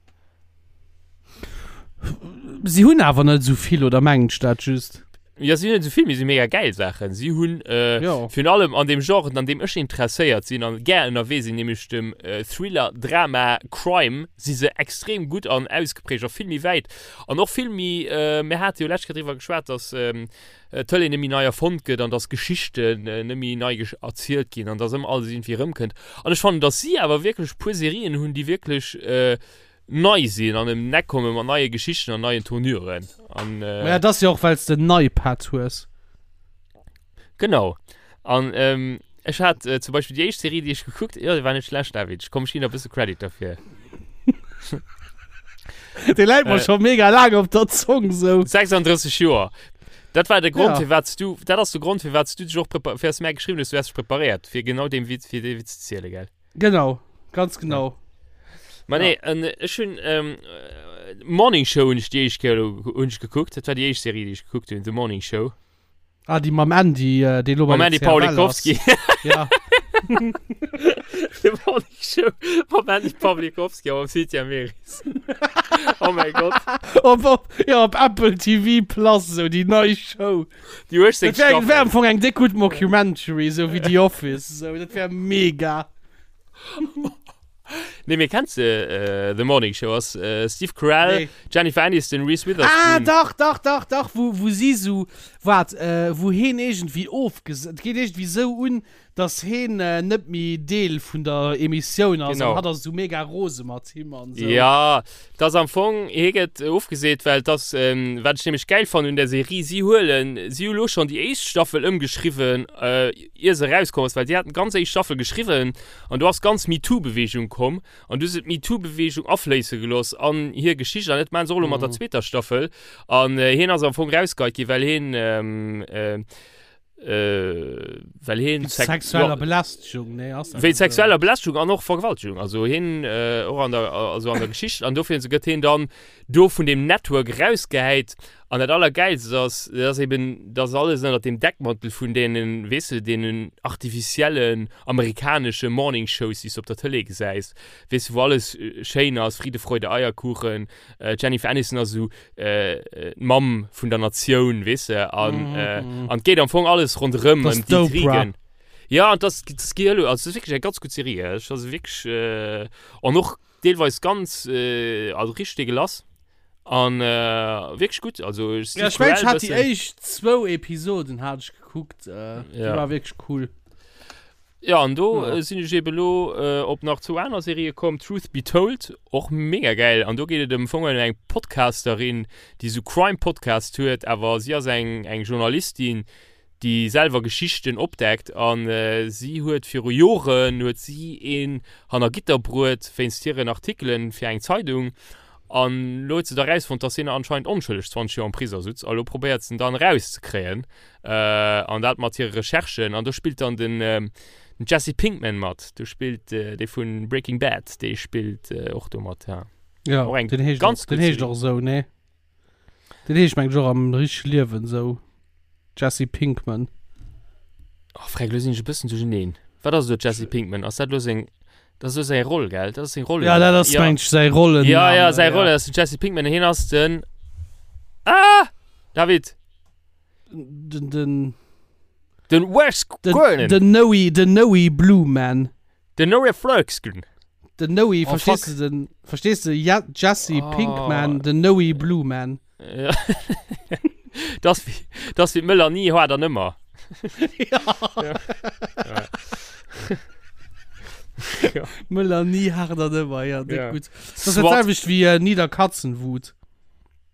Si hunn awer net esou vill, oder mengen ech dat just? Ja, si hunn net esou vill, mee si hu mega gäil Saachen. Si hunn äh, Jo. virun allem an deem Genre, an deem ech interesséiert sinn an gär ënnerwee sinn, nämlech dem äh, Thriller, Drama, Crime, si se extrem gutt an ausgeprägt a vill méi wäit an och vill méi, äh, mir hate jo lescht Kéier driwwer geschwat, dass ähm, d'Tëlee net méi nei erfonnt gëtt an dass Geschichten äh, net méi nei gesch erzielt ginn an dass ëmmer alles iergendwéi erëmkënnt. An ech fannen, dass si awer wierklech e puer Serien hunn, déi wierklech äh, nei sinn an em d'Neck komme mat neie Geschichten an neien Tournuren. An, äh, Maja, dat ass jo och, well s de en iPad hues. Genau. An ähm, ech hat äh, zum Beispill déi éischt Serie, déi ech gekuckt, jo, déi war net schlecht, David. Ech komm, ech ginn der e bësse Credit derfir. Dee läit mer Äh. scho mega laang op der Zong, sou. 36 Joer. Dat war de Grond, Ja. firwat s du, dat ass de Grond, firwat s du dech och prepa-, fir s du mär geschriwwen hues, du häss dech preparéiert, fir genau deem Witz, fir dee Witz ze zielen, gell? Genau, ganz genau. Ma nee, en, ech hunn ähm, Morning Show hunn ech déi éischt Kéier elo hunn ech gekuckt. Dat war déi éischt Serie, déi ech gekuckt hunn, The Morning Show. Ah, déi mam Andy, äh, dee lo bei Mam der Andy CFL ass. Pawlikowski. Ja. The Morning Show mam Andy Pawlikowski a mam Cynthia Meris. Oh mäi Gott. Op, op, ja, op Apple TV Plus, sou déi nei Show. Déi 18 Dat wär, wär am Staffel. Fong eng déck gutt Mockumentary, sou wéi The Office, sou, dat wär mega. Nee, mee kenns de äh, The Morning Show? Ass äh, Steve Carell, Nee. Jennifer Aniston, Reese Witherspoon. Ah, dach, dach, dach, dach, wou, wou si sou, waart, äh, wou heen iergendwéi ofges-, et geet iergendwéi sou un, Dass heen net méi Deel vun der Emissioun ass Genau. an hatt ass esou mega rose mat him an esou. Ja, et ass am Fong, hie gëtt ofgeseet, well et ass, wat ech nämlech gäil fannen un der Serie, si huelen, si hu lo schonn déi éischt Staffel ëmgeschriwwen, ier se erauskomm ass, well si haten d'ganz éischt Staffel geschriwwen an do ass d'ganz MeToo-Beweegung komm an du hu se d'MeToo-Beweegung afléisse gelooss an hir Geschicht an dat maachen se och elo mat der zweeter Staffel an hien ass am Fong rausgeheit ginn, well hien, Äh, well hien Wéinst sexueller Belästegung, nee, ass dat Wéinst net sexueller Belästegung an och Vergewaltegung. Also hien äh, och an der, also an der Geschicht. An dofir gëtt hien dann do vun dem Network rausgehäit. An dat Allergäilst ass, dat ass eben, dass alles ënnert dem Deckmantel vun deenen, weess de, deenen artificiellen amerikanesche Morning Shows, déi s de op der Tëlee gesäis, weess de, wou alles schéin ass, Friede, Freude, Eierkuchen, äh, Jennifer Aniston ass esou d'Mamm vun der Natioun, weess de, an an et geet am Fong alles ronderëm Das ëm d'Oprah. d'Intrigen. Ja, an das, das gehe elo, also das ist wierklech eng ganz gutt Serie, ech also wierklech äh, an och deelweis ganz äh, also richteg deegelass an äh, wierklech gutt, also Ja, ech mengen, ech hat déi éischt zwou Episoden hat ech gekuckt, äh, déi Ja. war wierklech cool. Ja, an do Ja. äh, sinn ech eben elo äh, op nach zwou aner Serië komm. Truth Be Told, och mega gäil. An do geet et am Fong ëm eng Podcasterin, déi sou Crime-Podcast huet, awer si ass eng, eng Journalistin, déi selwer Geschichten opdeckt. An äh, si huet viru Joren huet si een hanner Gitter bruet wéinst hiren Artikelen fir eng Zeidung. An elo huet se da rausfonnt, dass hien anscheinend onschëlleg 20 Joer am Prisong sutz. A lo probéiert se en dann erauszekréien. An dat mat hire Recherchen. An do spillt dann den, den Jesse Pinkman mat. Do spillt dee vu Breaking Bad, dee spillt och do mat, ja. Ja, Och eng den heescht ganz och, den gutt heescht Serie. och esou, nee? Den heescht mengen ech och am richtege Liewen esou. Jesse Pinkman. Oh, Freck, lo sinn ech e bëssen duercherneen. Wat ass elo Jesse Pinkman? Ass dat lo seng. Dat ass esou säi Roll, gell? Dat ass seng Roll. Ja, dat ass, ja. meng ech, säi Rollen. Ja, ja, säi Roll ass den Jesse Pinkman. Hien ass den. Ah! David! Den, den. Den Wes Den, Gurnen. den Noe, den Noe Blue Man. Den Noe Flurksgun. Den Noe, Oh, verstehst fuck. du den? Verstehst du? Ja, Jesse Oh. Pinkman, den Noe Blue Man. Ja. Das wie, das wie d'Melanie hat an ëmmer. Ja. Ja. Ja. Melanie hart an ëmmer, ja, dick Ja. gut. Das ist Swat. dat selwecht wie äh, Niederkatzenwut.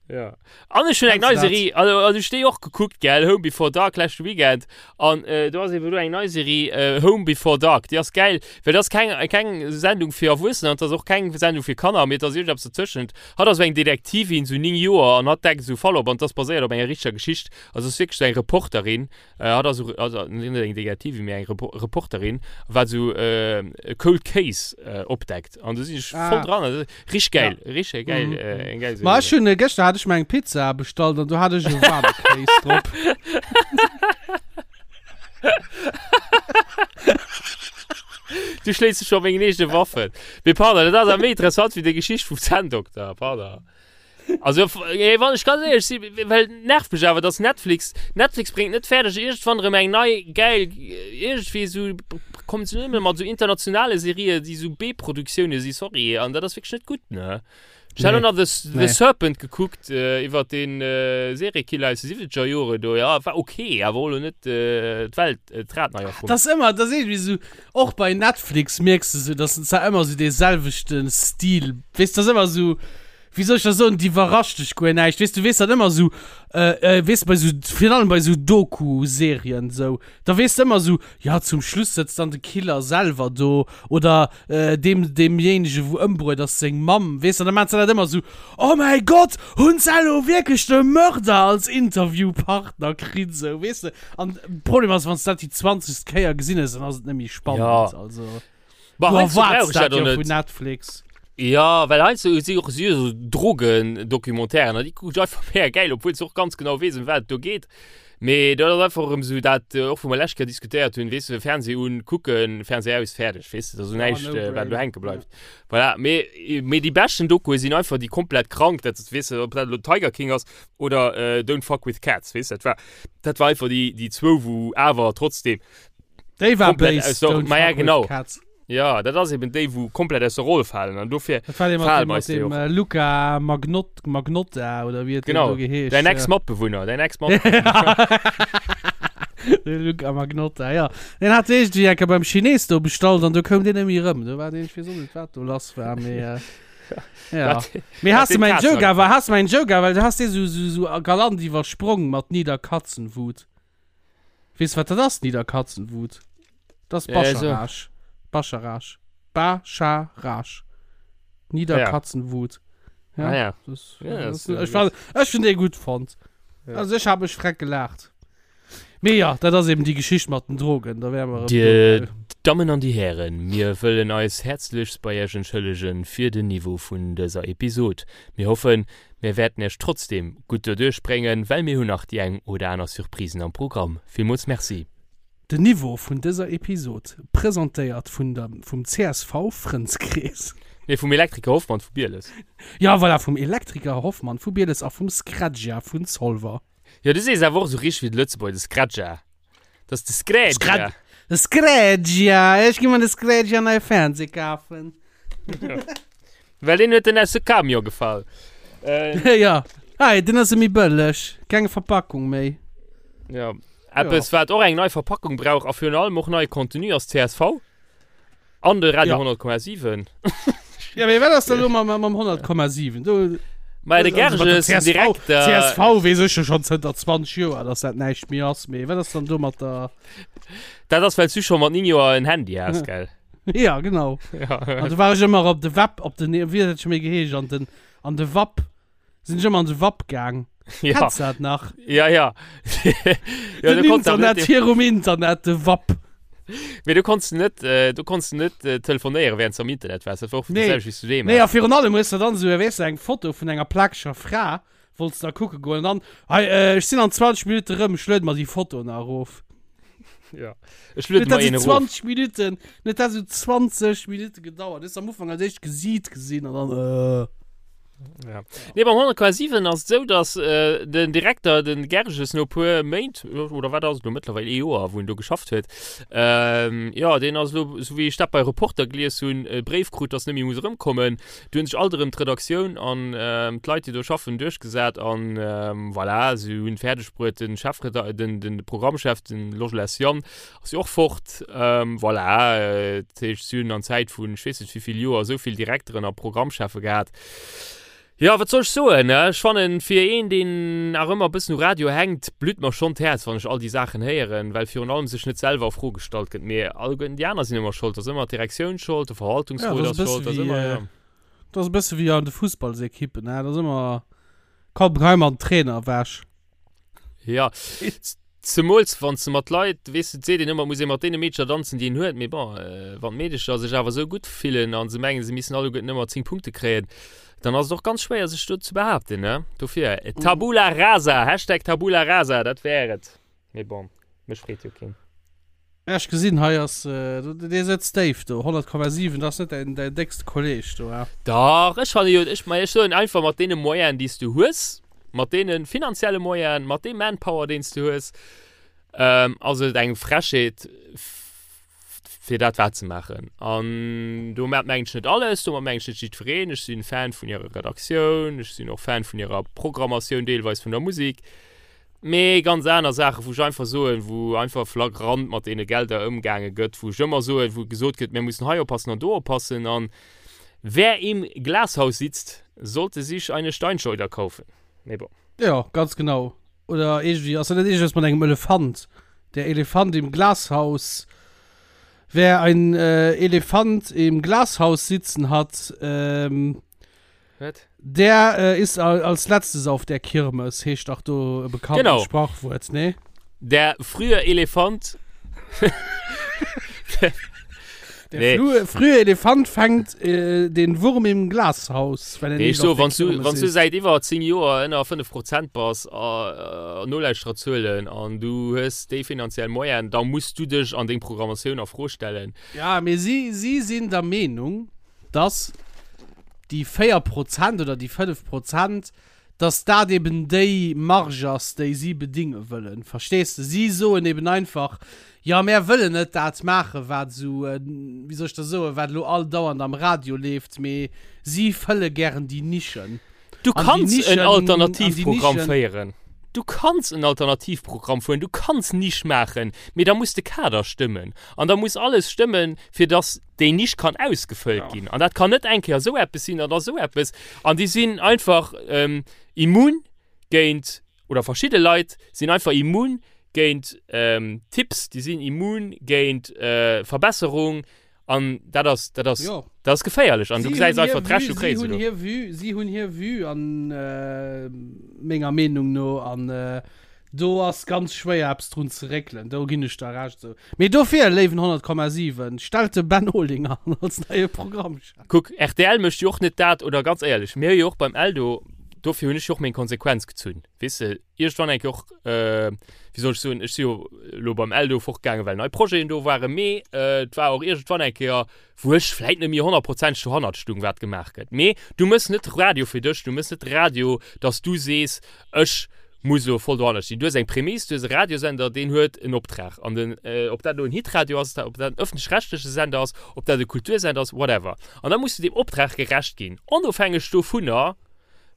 Ja. An ech hunn eng Kennst nei du dat? Serie, also, also ech déi och gekuckt, gell, Home Before Dark leschte Weekend. An äh, do ass eben do eng nei Serie, äh, Home Before Dark. Déi ass geil, well dat ass keng, keng Sendung fir Erwuessener, an dat ass och keng Sendung fir Kanner, mee et ass iergendeppes dozwëschent. Hatt ass esou eng Detektivin, sou 9 Joer, an hatt deckt esou Fall op, an dat ass baséiert op enger richteger Geschicht. Also ass wierklech sou eng Reporterin, äh, hatt ass esou, also net eng Detektivin, mee eng Repo Reporterin, wat esou äh, e Cold Case äh, opdeckt. An do sinn ech voll Ah. dran. Also, Richtig geil, Ja. richtig geil, Mhm. äh, eng geil Ma Serie. ech hunn, äh, gëschter hat ech mir eng Pizza bestallt an do hat ech e waarme Kéis drop. Du schléis dech scho op mengen eegene Waffen. Mee pardon, dat ass awer méi interessant wéi déi Geschicht vum Zänndokter, pardon. Also, ey, wann ech ganz éierlech sinn, well nervt mech awer, dass Netflix, Netflix bréngt net fäerdeg iergendwann erëm eng nei geil, iergendwéi esou, kommen se nëmme mat esou internationale Serien, déi esou B-Produktioune si, sorry, an dat ass wierklech net gutt, ne? Ech hat Nee. och nach The, The Nee. Serpent gekuckt, äh, iwwer den äh, Seriekiller aus de 70er Jore do, ja, war okay, awer och lo net äh, d'Welt, äh, d'Rad nei erfonnt. Das ist immer, das ist irgendwie so, och bei Netflix mierks du so, dass zwar ëmmer so dee selwechten Stil, weess, das ist ëmmer so, wéi soll ech dat soen, déi iwwerrascht dech guer näischt, weess, du weess dann ëmmer esou, äh, weess de, bei esou, virun allem bei esou Doku-Serien esou, da weess de ëmmer esou, jo, zum Schluss sëtzt dann de Killer selwer do oder deem, deemjéinege wou ëmbruet ass, seng Mamm, weess de, an da maachen se dat ëmmer esou, oh mäi Gott, hunn se elo wierklech de Mörder als Interviewpartner kritt, esou, weess de, an de Problem ass, wann s de dat déi zwanzegst Kéier gesinn hues, dann ass et net méi spannend, also. Bah, Du heiansdo brauch erwaarts ech dat dat och jo net. vun Netflix. Ja, well heiansdo si och si esou Drogendocumentairen an déi kucken ech einfach mega gäil, obwuel s de och ganz genau weess, ëm wat et do geet. Mee dat ass einfach erëm esou dat, och wou mer lescht Kéier diskutéiert hunn, weess de, Fernseh un, kucken, Fernseh aus, fäerdeg, weess de, dat ass esou Ja, näischt, no wat brain. elo hänke bleift. Voilà, mee, mee déi beschten Dokue sinn einfach déi komplett krank, dat weess de, ob dat elo Tiger King ass oder Don't Fuck With Cats, weess de, dat war, dat war einfach déi, déi zwou, wou awer trotzdem Déi war Komplett béis, aus der- Don't Ma ja, fuck with genau. cats. Ja, dat ass eben déi, wou komplett aus der Roll falen an dofir Dat war dee mat falen dem, mat eis déi dem och. äh, Luca Magnot, Magnotta oder wéi huet deen Genau, do geheescht. däin ja. Ex-Matbewunner, däin Ex-Matbewunner. De Luca Magnotta, ja. Den hat iergendwéi eng Kéier beim Chines do bestallt an do koum deen net méi erëm. Do war deen, ech weess och net, wat do lass war, mee äh, ja. Dat- Mee dat has de deen mäin Kazen Joke awer, agepackt. has de mäin Joke awer, well du has dee sou, sou, sou galant iwwersprong mat Niederkatzenwut. Weess de wat dat ass, Niederkatzenwut? Dat ass Ja, so. Bascharage. Bascharage. Bascharage. Niederkatzenwut. Ja. Ah, ja. Das, Ja, das, das, äh, ech fand, ech hun dee gutt fonnt. Ja. Also ech hab mech freck gelaacht. Mee ja, dat ass eben déi Geschicht mat den Drogen, da wäre mer erëm do, Dir gell. Dammen an dir Hären, mir wëllen eis häerzlechst bei Iech entschëllegen fir den Niveau vun dëser Episod. Mir hoffen, mir wäerten Iech trotzdem gutt doduerch bréngen, well mir hunn nach déi eng oder aner Surprisen am Programm. Villmools Merci. Den Niveau vun dëser Episod presentéiert vun der vum csv Frëndskrees. Nee, vum Elektriker Hoffmann vu Bieles. Ja voilà, vum Elektriker Hoffmann vu Bieles a vum Scredja vun Zolwer. Jo, du sees awer och esou richteg wéi de Lëtzebuerger, de Scredja. Dat ass de Scredja. Scred de Scredja, ech gi mer de Scredja neie Fernseh kafen. Well deen huet den aus de Camion gefall. Äh, Ja, hei, den ass méi bëlleg, keng Verpackung méi. ja. Eppes, wat och eng nei Verpackung brauch a virun allem och neie Contenu ass csv an de Radio Ja. 100,7. Ja, mee wat ass da lo mam, mam 100,7? Do, Mä de also mat der Gerges, den CSV, Direkter. CSV weess ech jo schonn zënter 20 Joer, dass dat näischt méi ass, mee wat ass dann do mat der. Dat ass, well s du scho mat 9 Joer en Handy has, gell? Ja, genau. Ja. An du war ech ëmmer op de Web, op den, wéi huet dat scho méi geheescht, an den, an de WAP. Sinn ech ëmmer an de WAP gaang. Ja. Kennst du dat nach? Ja, ja. ja Den du konntest awer Internet net, virum Internet, de WAP. mee du konntest net, äh, du konntest net äh, telefonéieren, während du am Internet warst. Dat war och Nee. dat selwecht wéi s du deem Nee, a has. virun allem hues du dann esou, weess du, eng Foto vun enger plakeger Fra, wollts da kucke goen, an dann, hei, äh, ech sinn an 20 Minutte rëm, ech luede mer déi Foto nach erof. Ja. Ech luede mer een erof. 20 Minuten, net dat sou 20 Minuten gedauert. Du hues am Ufank als éischt Gesiit gesinn an dann äh. Ja. Nee, beim 100,7 ass et esou, dass äh, den Direkter, den Gerges, no puer Méint, oder wat ass et lo mëttlerweil, ee Joer, wou en do geschafft huet, ähm, ja, deen ass lo, sou wéi ech dat bei Reporter gelies hunn, e Bréif krut, dass en net méi muss erëmkommen. Du hunn sech alt erëm d'Redaktioun an ähm, d'Leit, déi do schaffen, duerchgesat an ähm, voilà, se hunn fäerdeg bruet, den Chefreda-, den, den Programmchef, den Logelès Yann, ass jo och fort. Ähm, voilà, äh, dat heescht, si hunn an Zäit vun, ech weess net wéi vill Joer, esou vill Direkteren a Programmcheffe gehat. Jo, wat soll ech soen, ne? Ech fannen, fir een, deen nach ëmmer e bëssen u Radio hänkt, blütt mer schonn d'Häerz, wann ech all déi Saachen héieren, well virun allem sech net selwer a Fro gestallt gëtt. Mee alleguerten déi aner sinn ëmmer schold. Et ass ëmmer d'Direktioun schold, de Ja, Verwaltungsrot dat ass ass e bësse schold, ass wéi, ëmmer, ja. dat ass e bësse wéi an de Fussballsekippen, ne? Dat ass ëmmer, komm, hei mer den Trainer ewech. Ja, zemools wann s de mat Leit, weess de, et seet een ëmmer, et muss ee mat deene Meedercher danzen, déi een huet, mee bon, wann d'Meedercher sech awer esou gutt fillen a se mengen, se missten alleguerten ëmmer 10 Punkte kréien, dann ass et och ganz schwéier, sech do ze behaapten, ne? Dofir, Tabula rasa, Hashtag Tabula rasa, dat wär et. Mee bon, mech freet jo keen. Ja, ech gesinn, hei ass, dee sëtzt déif do, 100,7, dat ass net däin, däin déckste Kolleg do, ha? Dach, ech fanne jo, ech, ma ech soen einfach, mat deene Moyenen, déi s du hues, mat deene finanzielle Moyenen, mat deem Manpower, deen s du hues, ass et eng Frechheet, fir dat waerzemaachen. An domat mengen ech net alles, domat mengen ech net jiddwereen. Ech sinn Fan vun hirer Redaktioun, ech sinn och Fan vun hirer Programmatioun, deelweis vun der Musek. Mee ganz aner Saachen, wou ech einfach soen, wou einfach flagrant mat deene Gelder ëmgaange gëtt, wou ech ëmmer soen, wou gesot gëtt, mir mussen hei oppassen an do oppassen. An wer im Glashaus sitzt, sollte sich eine Steinschleuder kaufen. Mee bon. Jo, ganz genau. Oder iergendwéi, ass dat net iergendeppes mat engem Elefant? Der Elefant im Glashaus, wer ein Elefant im Glashaus sitzen hat, Wat? Der äh, ist als letztes auf der Kirmes, heescht dach do e bekannten Genau. Sprachwuert, ne? Der frühe Elefant. Der Nee. frühe, frühe Elefant fängt äh, den Wurm im Glashaus, wenn er Nee, nicht ech so, auf der wann du, Kirmes wann du ist. säit iwwer 10 Joer ënner 5 Prozent bass a äh, Nolauschtererzuelen an du hues déi finanziell Moyenen, da muss du dech an deng Programmatioun a Fro stellen. Ja, mee si, si sinn der Meenung, dass déi 4 Prozent oder déi 5 Prozent, dass dat eben déi Marge ass, déi si bedinge wëllen. Verstees de? Si soen eben einfach, Jo, mär wëllen net dat maachen, wat esou, wéi soll ech da soen, wat elo all dauernd am Radio leeft, mee si fëlle gären déi Nischen. Du An déi kanns en Nischen, an déi Alternativprogramm Nischen. féieren. Du kanns en Alternativprogramm fueren, du kanns Nisch maachen, mee da muss de Kader stëmmen. An da muss alles stëmmen, fir dass déi Nisch kann ausgefëllt ginn. An dat kann net eng Kéier esou eppes sinn an da esou eppes. An déi sinn einfach immun géint, oder verschidde Leit sinn einfach immun géint Tipps, déi sinn immun géint Verbesserung. An dat ass, dat ass, Jo. dat ass geféierlech. An du Si gesäis hunn einfach hir d'Rechnung Vue, si kréie se hunn do. hir Vue, si hunn hir Vue an menger Meenung no. An do ass ganz schwéier eppes drun ze réckelen. Do ginn ech der Recht esou. Mee dofir, léiwen 100,7, stellt de Ben Olinger an als neie Programmchef. Kuck, rtl mécht jo och net dat, oder ganz éierlech, mir hu jo och beim Eldo, dofir hunn ech jo och meng Konsequenz gezunn, weess de, iergendwann eng Kéier och, wéi soll ech soen, ech si jo elo beim Eldo fortgaangen, well nei Projeten do waren, mee et war och iergendwann eng Kéier, wou ech vläit net méi honnertprozenteg dohannert stung, wat gemaach gëtt. Mee du méchs net Radio fir dech, du méchs net Radio, dass du sees, ech muss elo voll dohannert stinn. Du hues eng Prämiss, du hues e Radiosender, deen huet en Optrag. An den, ob dat elo en Hitradio ass, ob dat en ëffentlech-rechtleche Sender ass, ob dat e Kultursender ass, whatever. An da muss du deem Optrag gerecht ginn, onofhängeg dovunner,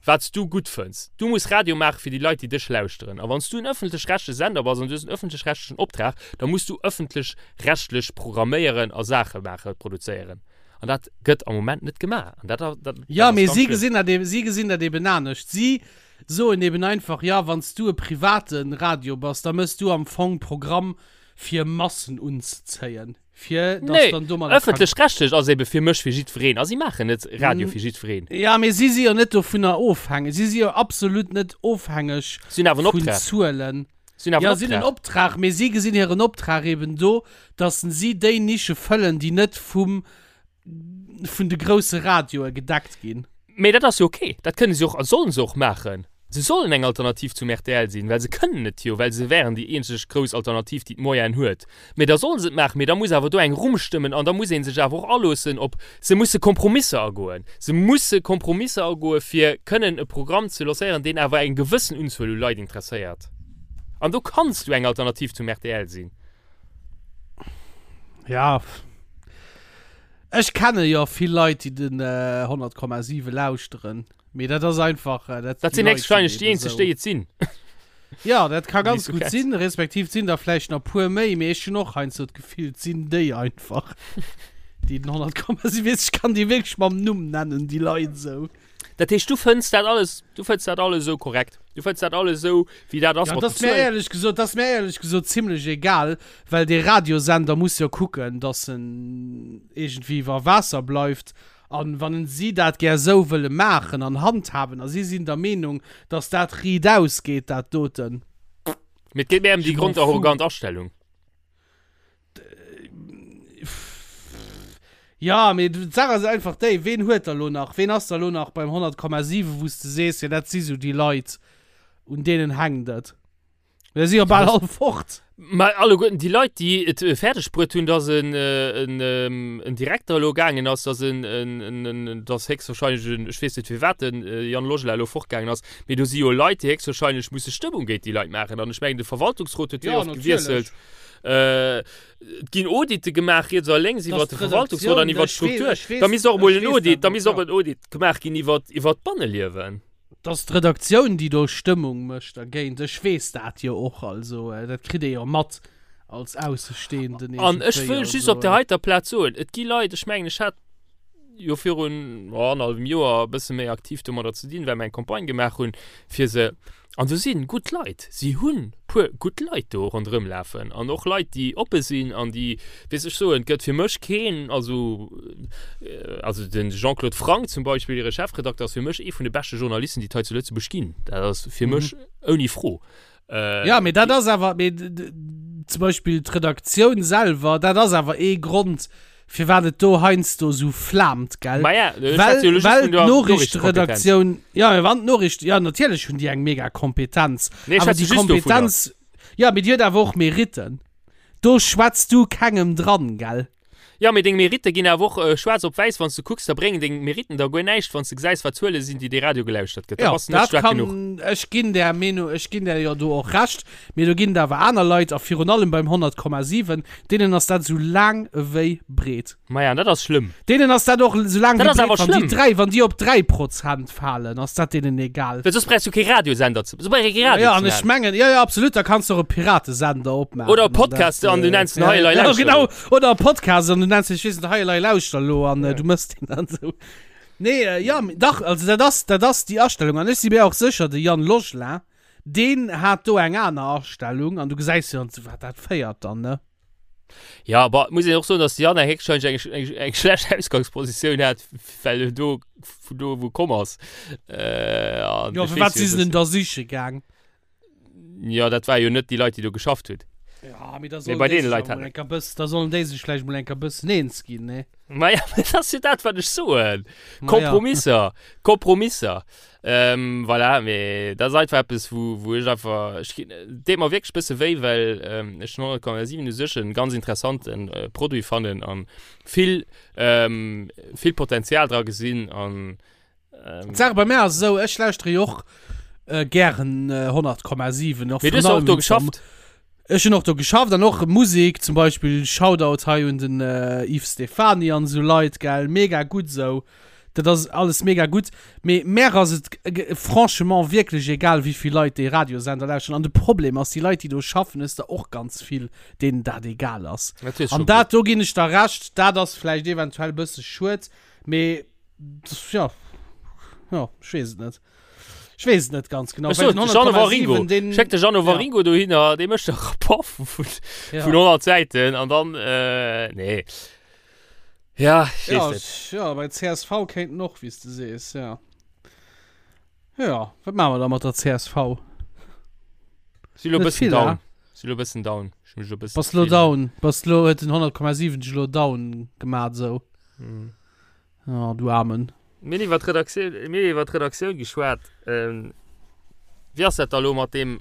wat s du gutt fënns. Du muss Radio maache fir déi Leit, déi dech lauschteren. A wann s du en ëffentlech-rechtleche Sender bass an du hues en ëffentlech-rechtlechen Optrag, da muss du ëffentlech-rechtlech programméieren a Saache maachen, produzéieren. An dat gëtt am Moment net gemaach. An dat, dat, dat Jo, ass mee ganz si schlëmm. gesinn dat eben, si gesinn dat eben anescht. Si soen eben einfach, jo, wann s du e private Radio bass, da méchs du am Fong Programm fir Massen unzezéien. Fir dass Nee, dann domadder kann. ëffentlech-rechtlech ass ebe fir mech fir jiddwereen a si maachen net Radio fir jiddwereen. Ja, mee si si jo net dovunner ofhängeg. Si si jo absolut net ofhängeg Si hunn awer en vun Optrag. Zuelen. Si hunn awer Ja, en si hunn en Optrag. Optrag, mee si gesinn hiren Optrag eben do, dass si déi Nische fëllen, déi net vum, vun de grousse Radioe gedeckt ginn. Mee dat ass jo ok. Dat kënne si och a sollen se och maachen. Se sollen eng Alternativ zum rtl sinn, well se kënnen et jo, well se wären déi eenzeg grouss Alternativ, déi d'Moyenen huet. Mee da solle se et maachen, mee da muss awer do eng Rumm stëmmen an da muss ee sech awer och aloossen op, se musse Kompromisser agoen. Se musse Kompromisser agoe fir kënnen e Programm ze lancéieren, deen awer eng gewëssen Unzuel u Leit interesséiert. An do kanns du eng Alternativ zum rtl sinn. Ja, ech kenne jo vill Leit, déi den 100,7 lauschteren. Mee dat ass einfach. Äh, dat, dat sinn héchstwahrscheinlech déi eenzeg, déi et sinn. Ja, dat ka ganz gutt sinn, respektiv sinn der vläicht nach puer méi, mee ech hunn och heiansdo d'Gefill, et sinn déi einfach, déi den 100,7 weess, ech kann déi wierklech mam Numm nennen, déi Leit esou. Dat heescht, du fënns dat alles, du fënns dat alles esou korrekt? Du fënns dat alles esou, wéi dat ass ja, mat den Zuelen? Éierlech gesot, dat ass mir éierlech gesot zimlech egal, well dee Radiosender muss jo kucken, dass en iergendwéi iwwer Waasser bleift An wann si dat gär esou wëlle maachen an handhaben a si sinn der Meenung, dass dat riitaus geet, dat doten. Mee et geet méi ëm déi grondarrogant Astellung. Jo, mee d'Saach ass einfach déi, Ween huet der elo nach, ween ass der elo nach beim 100,7, wou s de sees, jo dat si sou déi Leit, un deenen hänkt et? Mir si jo bal all fort. Mä alleguerten déi Leit, déi et fäerdeg bruet hunn, datt en, en, en Direkter elo gaangen ass, datt en, en, en, datt héchstwahrscheinlech en, ech weess net firwat den Yann Logelin elo fortgaangen ass, mee do si jo Leit, déi héchstwahrscheinlech musse Stëmmung géint déi Leit maachen. An ech mengen, de Verwaltungsrot huet wéi oft gewiesselt. Et ginn Audite gemaach riets a lénks iwwert de Verwaltungsrot an iwwert d'Struktur. Da misst och emol en Audit, da misst och en Audit gemaach ginn iwwert, iwwert d'Banneliewen. 't ass d'Redaktioun, déi do Stëmmung mécht dergéint. Ech weess dat jo och. Also dat kritt ee jo mat als Aussestehenden An ech wëll just op där heiter Plaz soen, et gi Leit, ech mengen, ech hat jo virun annerhallwem Joer e bësse méi aktiv domadder ze dinn, well mer eng Campagne gemaach hunn, fir se An do si gutt Leit, si hunn puer gutt Leit do ronderëm lafen an och Leit, déi oppe sinn an déi, weess ech soen, et gëtt fir mech keen, also, also de Jean-Claude Franck zum Beispill, hire Chefredakter, ass fir mech ee vun de beschte Journalisten, déi et hei zu Lëtzebuerg ginn. Dat ass fir mech ouni Fro. Jo, mee dat ass awer, mee zum Beispill d'Redaktioun selwer, dat ass awer ee Grond, firwat et do heiansdo sou flaamt, gell? Ma ja, ech schwätze jo elo just vun der Noriichtekompetenz. Ja, mee wann d'Noriicht, ja natierlech hunn déi eng mega Kompetenz. Nee, ech Awer schwätze déi just dovunner. Kompetenz, ja, mee déi huet awer och Meritten. Do schwätz du kengem dran, gell? Ja, mee deng Meritte ginn awer och schwaarz op wäiss, wann s du kucks, da bréngen deng Meritten der guer näischt, wann s du gesäis, wat Zuele sinn, déi dee Radio gelauschtert gëtt. Da Ja, bass du net dat staark kann, genuch. ech ginn där Meenung, ech ginn där jo do och Recht, mee do ginn et awer aner Leit, a virun allem beim 100,7, Deenen ass dat esou laang ewéi breet. Maja, an dat ass schlëmm. Deenen ass dat och esou laang Dat wéi ass breet. awer Wann déi schlëmm. 3, wann déi op 3 Prozent falen, ass dat deenen egal. Well soss brauchs du kee Radiosender ze, soss brauch ee kee Radio Ja, ze an ech maachen. mengen, ja, ja, absolut, da kanns du och e Piratesender opmaachen. Oder e an dat, Podcast an du äh, nenns den ja, Hei Elei ja, Lauschter genau. Lo. Oder e Podcast an du nenns den, ech weess net, Hei Elei Lauschter Lo an äh, du mëss deen dann esou. Nee, äh, ja, dach, also dat ass, dat ass déi Astellung. An ech si mir och sécher, de Yann Logelin, Deen hat do eng aner Astellung an du gesäis jo dann zu wat dat féiert dann, ne? Ja, aber muss een och soen, dass de Yann héchstwahrscheinlech eng, eng, eng schlecht Ausgangspositioun hat, well en do vun do wou komm ass. Äh, an Jo, ech firwat weess jo, si se dass denn da siche gaang? Ja, dat war jo net déi Leit, déi do geschafft hunn. Ja, mee da Mee sollen bei déi deene sech Leit awer hat mol enker bëss, da sollen déi sech vläicht mol enker bëssen eens ginn, ne? Ma ja, dat ass jo dat, wat ech soen. Ma ja. Kompromisser, Kompromisser. Ähm, voilà, mee dat ass einfach eppes, wou, wou ech einfach, ech ginn, et deet mer wierklech bësse wéi, well ähm, ech den 100,7 u sech en ganz interessanten äh, Produit fannen an vill, ähm, vill Potenzial dra gesinn an ähm, D'Saach bei mär ass esou, ech lauschtere jo och äh, gären äh, 100,7. Och Mee du virun hues och allem do wéinst der geschafft. Ech hunn och do geschafft an och Musek, zum Beispill Shoutout hei un den Yves Stephany an esou Leit, gell, mega gutt esou. Dat ass alles mega gutt, mee mär ass et franchement wierklech egal wéivill Leit dee Radiosender lauschteren. An de Problem ass, déi Leit déi do schaffen, hues der och ganz vill deenen dat egal ass. An dat, do ginn ech der Recht, dat ass vläicht eventuell e bësse schued, mee jo, jo, ech weess et net. Ech weess et net ganz genau. Ech sot, Jeannot Waringo. Den, Schéck de Jeannot ja. Waringo dohinner, dee mécht e Rapport vun, ja. vun 100 Säiten an dann, äh, nee. Ja, ich ja, net. Ja, bei CSV kéinten och, wéi s de sees, ja. Ja, wat maache mer da mat der CSV? Si lo bëssen down. Si lo bëssen down. Ech mech lo bëssen. Bass lo down. Bass lo, huet den 100,7 dech lo down gemaat esou. Mm. Oh, du Aarmen. Mir hunn iwwer d'Redaktioun, mir hunn iwwer d'Redaktioun geschwat. Ähm. Wéi ass dat da elo mat deem,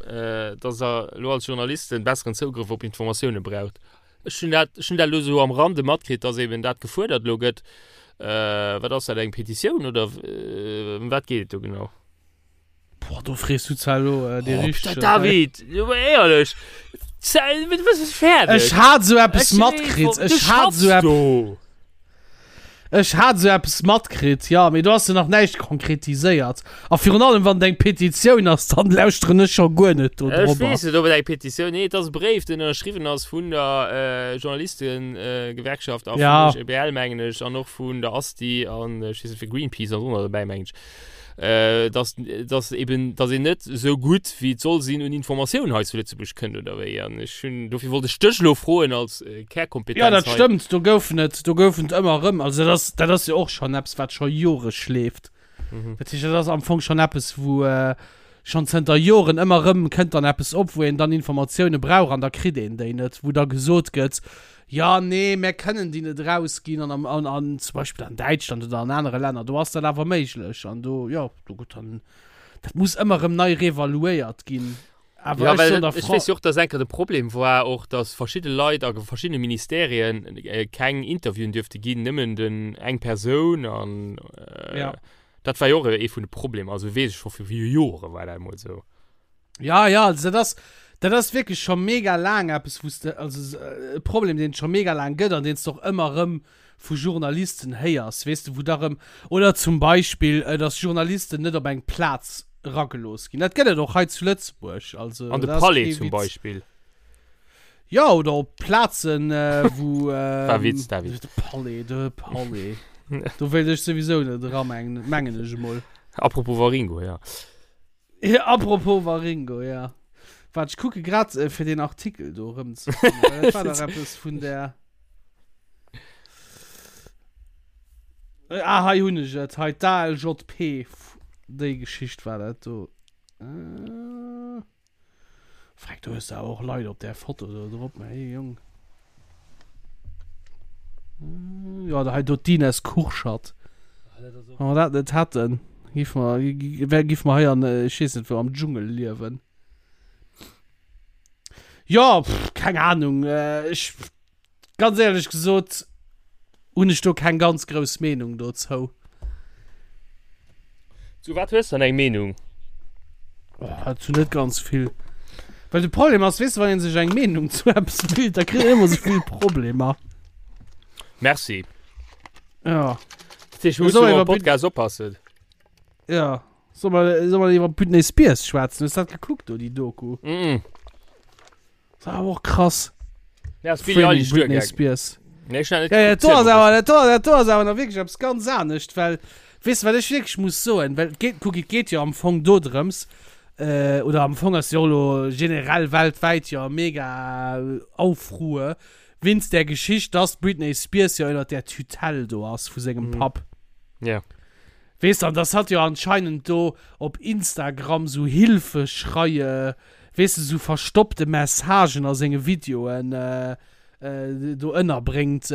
dass Der elo als Journalisten besseren Zougrëff op Informatioune braucht? Ech hunn dat, ech hunn dat elo esou am Rande matkritt, dass eben dat gefuerdert elo gëtt. Wat ass dat, eng Petitioun oder ëm wat geet et do genau? Boah, do frees du zwar elo dee Oh, richtegen. David, jo, ma éierlech, du bist fäerdeg. Ech hat esou eppes matkritt, Du ech hat schaffs esou epp. do. Ech hat esou eppes matkritt, jo, mee do ass jo nach näischt konkretiséiert. A virun allem, wann et eng Petitioun ass, dann lauschteren ech scho guer net do Ech drobber. weess net, ob et eng Petitioun, nee, et ass e Bréif, deen ënnerschriwwen ass vun der Journalistengewerkschaft a vum Ja. OGBL, mengen ech, an och vun der ASTI an ech weess net, fir Greenpeace ass och nach dobäi, mengen ech. äh, dass, dass eben, dass een net esou gutt wéi et soll sinn un Informatioun hei zu Lëtzebuerg kënnt oder wéi. An ech hunn, dofir wollt ech dech elo froen als äh, Kärkompetenz Ja, dat hei. stëmmt, do goufen et, do goufen et ëmmer erëm, also dat ass, dat ass jo och schonn eppes, wat scho Jore schleeft. Mhm. Dat heescht, dat ass am Fong schonn eppes, wou äh, schonn zënter Joren ëmmer erëm kënnt dann eppes op, wou een dann Informatioune brauch an da kritt een déi net, wou da gesot gëtt, Jo, nee, mär kënnen déi net erausginn an am, an, an zum Beispill an Däitschland oder an anere Länner, do ass dat awer méiglech an do, jo, do gutt, dann, dat muss ëmmer erëm nei reevaluéiert ginn. Awer Ja, ech well soen der ech Fra. weess jo och, dass enker de Problem war och, dass verschidde Leit a verschiddene Ministerien keng Interviewen duerfte ginn, nëmmen den eng Persoun an Ja. dat war jo och ee vun de Problemer. Also weess ech scho vu Jore war dat emol esou. Ja, ja, also dat ass, dat ass wierklech scho mega laang eppes, wou s de, also e Problem, deen et scho mega laang gëtt an deen s de och ëmmer erëm vu Journalisten héiers, weess de, wou da rëm, oder zum Beispill, dass Journalisten net op eng Plaz eragelooss ginn. Dat gëtt et och hei zu Lëtzebuerg, also An de dat ass Palais kee zum Witz. Beispill. Ja, oder op Plazen, wou. War Witz, David. De Palais, de Palais. Do wéilt ech souwisou net era, mengen ech emol. Apropos Waringo, ja. Ja, apropos Waringo, ja. Waart, ech kucke grad, äh, fir den Artikel do erëm ze fannen, well dat war dach eppes vun der. Äh, ah, hei hunn ech et. Hei, d'ALJP. Déi Geschicht war dat do. Äh. Freck, do hues de awer och Leit op där Foto do drop, mä hey, Jong. Äh, ja, da hei do d'Ines Kurschat. Wann mer dat net hätten, giff mer, wär, giff mer hei an, äh, ech weess net wou, am Dschungel liewen. Ja, pff, keng Ahnung, äh, ech, Ganz éierlech gesot hunn ech do keng ganz grouss Meenung dozou. Zu wat hues dann eng Meenung? Oh, zu net ganz vill. Well de Problem ass, weess de, wann een sech eng Meenung zu eppes bilt, da kritt een ëmmer sou vill Problemer. Merci. Ja. Dat heescht, mir Soll mussen iwwer am Podcast oppassen. Ja. Soll mer, soll mer iwwer Britney Spears schwätzen? Hues dat gekuckt do, déi Doku? Mm. Das war awer och krass. Ja, ass Billie Framing Eilish Britney duergaangen. Spears. Nee, ech hun dat net Ja, ja, gekuckt, do ass ziel mol awer, dat do, dat do ass awer nach wierklech eppes ganz anescht, well, weess de, wat ech wierklech muss soen, well et geet, kuck, et geet jo am Fong do drëms, äh, oder am Fong ass jo elo generell weltwäit jo mega Aufruhr wéinst där Geschicht, dass d'Britney Spears jo ënnert där Tutelle do ass vu sengem Mhm. Papp. Ja. Weess de, an dass hatt jo anscheinend do op Instagram sou Hilfeschreie weess de, sou verstoppte Messagen a senge Videoen do ënnerbréngt.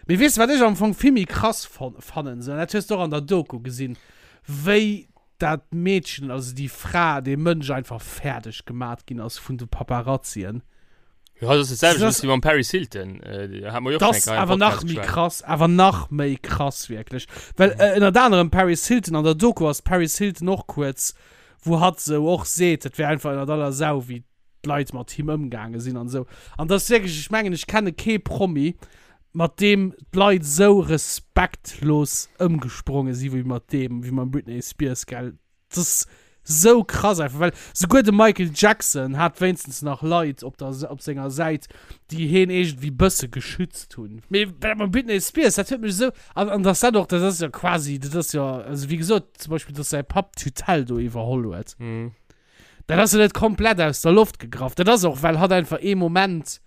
Mee weess de, wat ech am Fong vill méi krass fannen, sou, an dat hues de och an der Doku gesinn, wéi dat Meedchen, also déi Fra, dee Mënsch einfach fäerdeg gemat ginn ass vun de Paparazzien. Jo, dat ass dat selwecht wéi mam Paris Hilton. Hat mer jo och Das schon eng Kéier am awer nach Podcast méi geschwat. krass, awer nach méi krass wierklech. Well ënnert anerem Paris Hilton, an der Doku ass d'Paris Hilton och kuerz wou hatt sou och seet, et wär einfach ënnert aller Sau, wéi d'Leit mat him ëmgaange sinn an esou. An dat ass wierklech, ech mengen, ech kenne kee Promi, mat deem d'Leit esou respektlos ëmgespronge si wéi mat deem, wéi mam Britney Spears, gell. Dat ass sou krass einfach, well souguer de Michael Jackson hat wéinstens nach Leit op der, op senger Säit, déi heen iergendwéi bësse geschützt hunn. Mee dat mam Britney Spears, dat huet mech esou, an, an dass dat och, dat ass jo quasi, dat ass jo, also wéi gesot, zum Beispill, dass säi Papp d'Tutelle do iwwerholl huet, Mhm. dat ass jo net komplett aus der Loft gegraff. Dat ass och, well hatt einfach ee Moment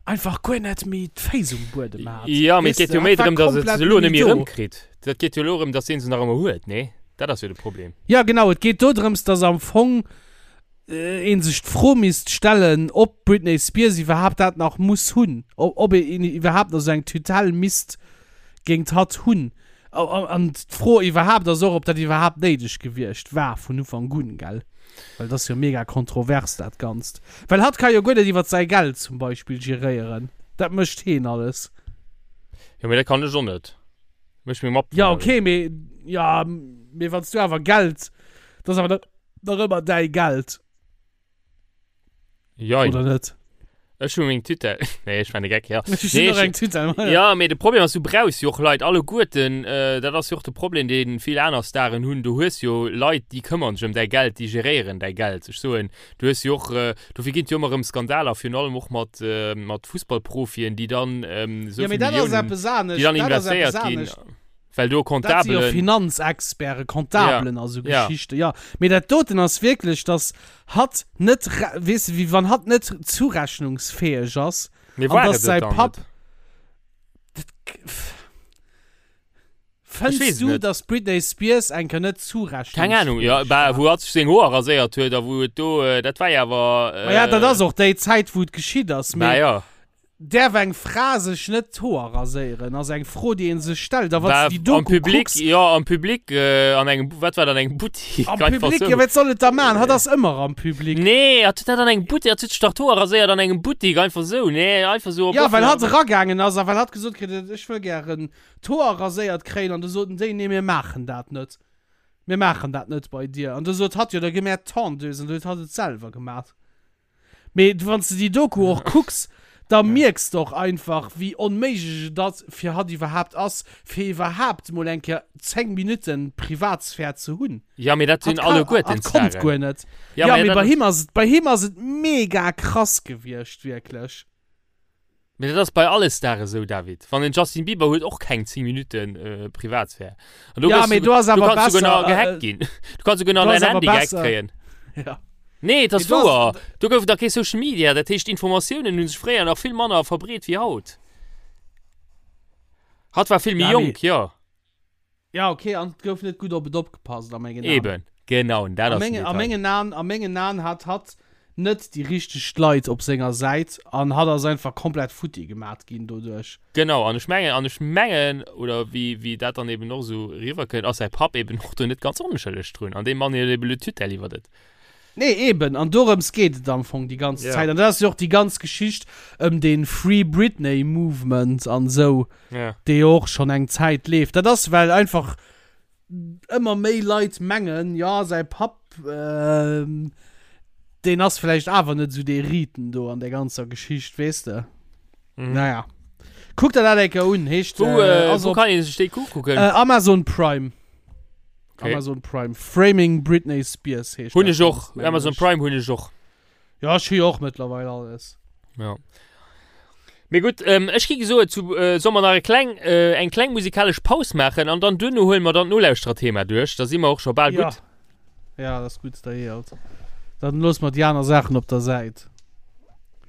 einfach guer net méi d'Féiss um Buedem hat. Ja, mee et Weess geet de, jo méi hatt war drëm, dass et komplett se elo net net méi méi do. erëmkritt. Dat geet jo elo erëm, dass deen se nach ëmmer huet, nee? Dat ass jo de Problem. Ja, genau, et geet dodrëms, dass am Fong ee sech d'Fro misst stellen, ob d'Britney Spears iwwerhaapt dat nach muss hunn, ob een iwwerhaapt nach esou eng Tutelle misst géint hatt hunn. An d'Fro iwwerhaapt ass och, ob dat iwwerhaapt néideg gewiescht war vun Ufank un, gell? Well dat ass jo mega kontrovers, dat Ganzt. Well hatt ka jo guer net iwwer säi Geld zum Beispill geréieren. Dat mécht heen alles. Jo, mee dat kann ech och net. Mécht meng Mapp. Ja, okay, mee, ja, mee wann s du awer Geld, dat ass awer nach ëmmer däi Geld. Jein. Oder net? Ech hu meng Tüte. Nee, ech war de Geck, ja. Ech Nee, hunn och eng Tüte. Ja, mee de Problem ass, du brauchs jo och Leit alleguerten. Äh, dat ass jo och de Problem, dee vill aner Staren hunn. Du hues jo Leit, déi këmmern sech ëm däi Geld, déi geréieren däi Geld. Ech soen, du hues jo och, äh, dofir ginn et jo ëmmer erëm Skandaler, virun allem och mat, äh, mat Fussballprofien, déi dann ähm, esou Ja, mee vill dat ass Milliounen, eppes anescht. déi dann Dat ass eppes investéiert ginn. anescht. Well do Dat si jo Comptabelen. Finanzexperten, Comptabelen a sou Ja. Geschichten, jo. Mee dat doten ass wierklech, dass hatt net, weess de, wéi wann hatt net zurechnungsfäeg ass Mee an war dass et et säi dann Papp. net? Dat, Ech fënns weess et du, net. dass d'Britney Spears eng Kéier net Keng Ahnung, jo, zurechnungsfäeg bah, war? wou hatt sech seng Hoer raséiert huet a wou et do, dat war jo awer. Ma ja, dat ass och déi Zäit, wou et geschitt ass, Bah mee. jo. Däerf eng Fra sech net d'Hoer raséieren, ass eng Fro, déi een sech stellt. A wann Bah, s de déi am Doku Public, kucks. jo, am Public, an engem, wat war dat, an engem Buttik? Am Einfach Public, sou. jo, wat soll et da maachen? Hatt ass ëmmer am Public. Nee, hatt huet dat an engem Buttik, hatt huet sech dach d'Hoer raséiert an engem Buttik, einfach sou, nee, einfach sou op Jo, well hatt offener. eragaangen ass a well hatt gesot kritt huet, ech wëll gären d'Hoer raséiert kréien. An du soten déi, nee, mir maachen dat net. Mir maachen dat net bei dir. An du sot hatt, jo, da gi mär d'Tondeuse. An du huet hatt et selwer gemaat. Mee wann s de déi Doku och kucks, da mierks de och einfach, wéi onméiglech et ass, fir hatt iwwerhaapt ass, fir iwwerhaapt mol eng Kéier 10 Minutten Privatsphär ze hunn. Ja, mee dat Hatt sinn ka, alleguerten hatt konnt Staren. guer net. Ja, Ja, mee mee dat bei ass. him ass et, bei him ass et mega krass gewiescht, wierklech. Mee dat ass bei alle Stare sou, David. Wann en Justin Bieber huet och keng 10 Minutten Privatsphär. An do Ja, gëss mee du, do ass du awer kanns souguer besser, nach gehackt äh, ginn. Du kanns souguer nach do dein ass awer Handy gehackt besser. kréien. Ja. Nee, et ass Mee do ass, wouer. Do gouf et nach kee Social Media. Dat heescht, d'Informatiounen hu sech fréier nach vill manner verbreet wéi haut. Hatt war vill méi ja, mee, jonk, jo. ja, okay, an et gouf net gutt op et opgepasst, a mengen Aen. Eben, genau, en dat A ass den mengen, a Detail. mengen Aen, a mengen Aen hat hatt net déi richteg Leit op senger Säit an hatt ass einfach komplett futti gemat ginn doduerch. Genau, an ech mengen, an ech mengen, oder wéi, wéi dat dann eben och esou eriwwerkënnt, ass säi Papp eben och do net ganz onschëlleg drun. An deem Mann huet eben le Tutelle iwwert et. Nee, eben, an dorëms geet et am Fong déi ganz Ja. Zäit. An dat ass jo och déi ganz Geschicht ëm dee Free Britney Movement an esou, Ja. dee jo och schonn eng Zäit leeft. Dat ass, well einfach ëmmer méi Leit mengen, jo, säi Papp, deen ass vläicht awer net esou dee Riiten do an där ganzer Geschicht, weess de. Mhm. Naja. Kuck der dat eng Kéier un, heescht, Wou, äh, äh, ass wou op kann ee sech déi kucken? äh, Amazon Prime. Okay. Amazon Prime. Framing Britney Spears heescht Hunn dat ech och. Ganzt, mengen Amazon ech. Prime hunn ech och. Ja, ech hu jo och mëttlerweil alles. Ja. Mee gutt, ähm, ech gi gesoe zu, äh, soll mer nach e kleng, äh, eng kleng musikalesch Paus maachen an dann duerno huele mer dann d'Nolauschtererthema duerch. Da si mer och scho bal Ja. gutt. Ja, dat ass gutt, da eelt. Dann loosse mer déi aner Saachen op der Säit.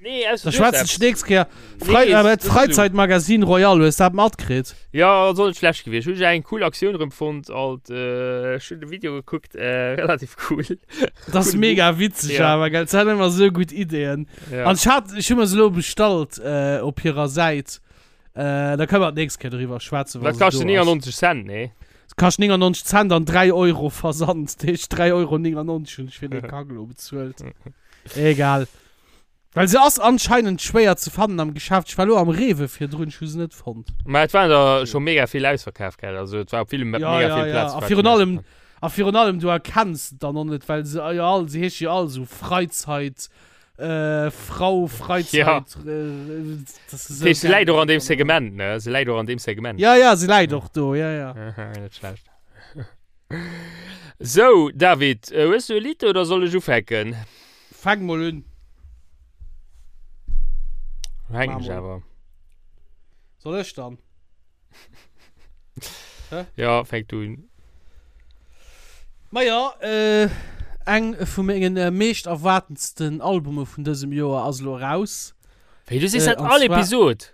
Nee, ausser Da du hues schwätzen ech eppes. d'nächst Kéier. Frei, Nee, äh, das ist du. Freizeitmagazin Royal, hues dat matkritt? Ja, ass och net schlecht gewiescht. Hunn ech eng cool Aktioun erëm fonnt alt. Äh, ech hunn de Video gekuckt, äh, relativ cool. Dat ass Coole mega Move. witzeg Ja. awer, gell? Se hat ëmmer sou gutt Ideeën. Ja. An ech hat, ech hu mer se elo bestallt, äh, op hirer Säit. Äh, da kënne mer d'nächst Kéier doriwwer schwätzen, wa Dat se kascht do ass. 99 Cent, nee? Et kascht 99 Cent an 3 Euro Versand. Dat heescht 3,99 Euro hunn ech fir dee Kack elo bezuelt. Egal. Well se ass anscheinend schwéier ze fannen am Geschäft. Ech war lo am Rewe virdrun, ech hu se net fonnt. Mä et waren der scho mega vill ausverkaf, gell? Also et war op ville Ja, mega ja, vill ja. Plaze A war virun et allem, a virun allem du erkenns et dann och net, well se jo all, se heesche jo all esou Freizeit, äh, Frau, Freizeit, Ja. äh, das ist Dat esou heescht, se geil. läit och an deem Segment, ne? Se läit och an deem Segment. Ja, ja, se läit och do, ja, ja. Net schlecht. Sou, David, hues du e Lidd oder soll ech ufänken? Fänk mol un. Fänken ech Mach mol. awer. Soll ech dann? Hä? Ja, fänk du un. Maja, äh, eng vu mengen äh, meescht erwaartendsten Albume vun dësem Joer ass elo eraus. Wéi, du sees Äh, dat an all zwar- Episod?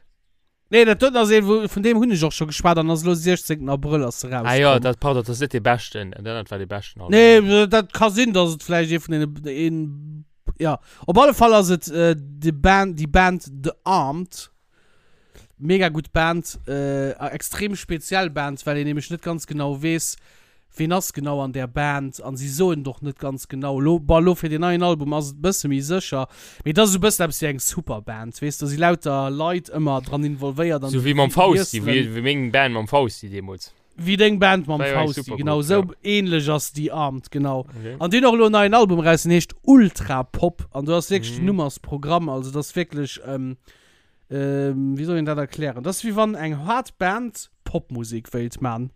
Nee, dat doten ass een, wou, vun deem hunn ech och scho geschwat an ass elo 16. Abrëll ass se Ah jo, rauskomm. dat, pardon, dat ass net dee beschten. Dat anert war dee beschten Album. Nee, dat ka sinn, dass et vläicht ee vun deene, een, ja. Op alle Fall ass et äh, de Band, déi Band The Armed. Mega gutt Band, extrem speziell Band, well een nämlech net ganz genau weess, ween ass genau an där Band an si soen et och net ganz genau. Elo, bon, elo fir deen neien Album ass et e bësse méi sécher, mee et ass esou e bëssen eppes wéi eng Superband, weess, do si lauter Leit ëmmer dran involvéiert an Sou wéi mam Fausti, wéi meng Band mam Fausti deemools. Wéi deng Band mam Fausti, genau esou ähnlech ass déi Armed, genau. Okay. An déi hunn och elo en neien Album eraus, deen heescht Ultra Pop an do ass wierklech den Numm ass Programm, also dat ass wierklech, ähm, ähm, wéi soll een dat erklären, dat ass wéi wann eng haart Band Popmusek wéilt man.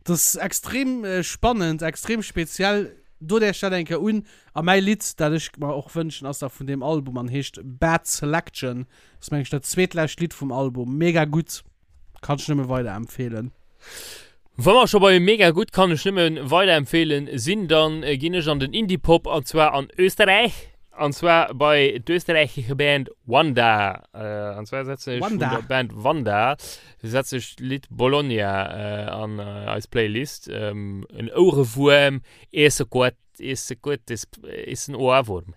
Dat ass extrem spannend, extrem speziell, dot Iech dat eng Kéier un. A mäi Lidd, dat ech mer och wënschen, ass da vun deem Album an heescht Bad Selection, ass meng ech dat zweetlescht Lidd vum Album, mega gutt. Kann ech nëmme weiderempfehlen. Wa mer scho bei mega gutt kann ech nëmme weiderempfehlen sinn, dann ginn ech an den Indie-Pop an zwar an Österreich an zwar bei d'österreichische Band Wanda. An zwar setzen ech vun der Band Wanda setze ech d'Lidd Bologna an eis Playlist. En Ouerewuerm, is gutt. Is gut, is, is en Ohrwurm.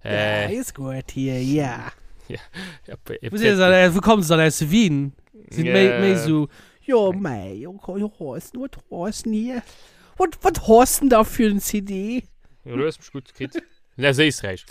Äh, ja, is gut hier, ja. Ja, ja, Wo sind das, wo kommen sie dann aus Wien? Sind yeah. méi, méi so, jo, mei, jo, jo, ist nur Thorsten hier. Wat, wat hast denn da für ein CD? Ja, du hast mich gut gekriegt. Aus Éisträich.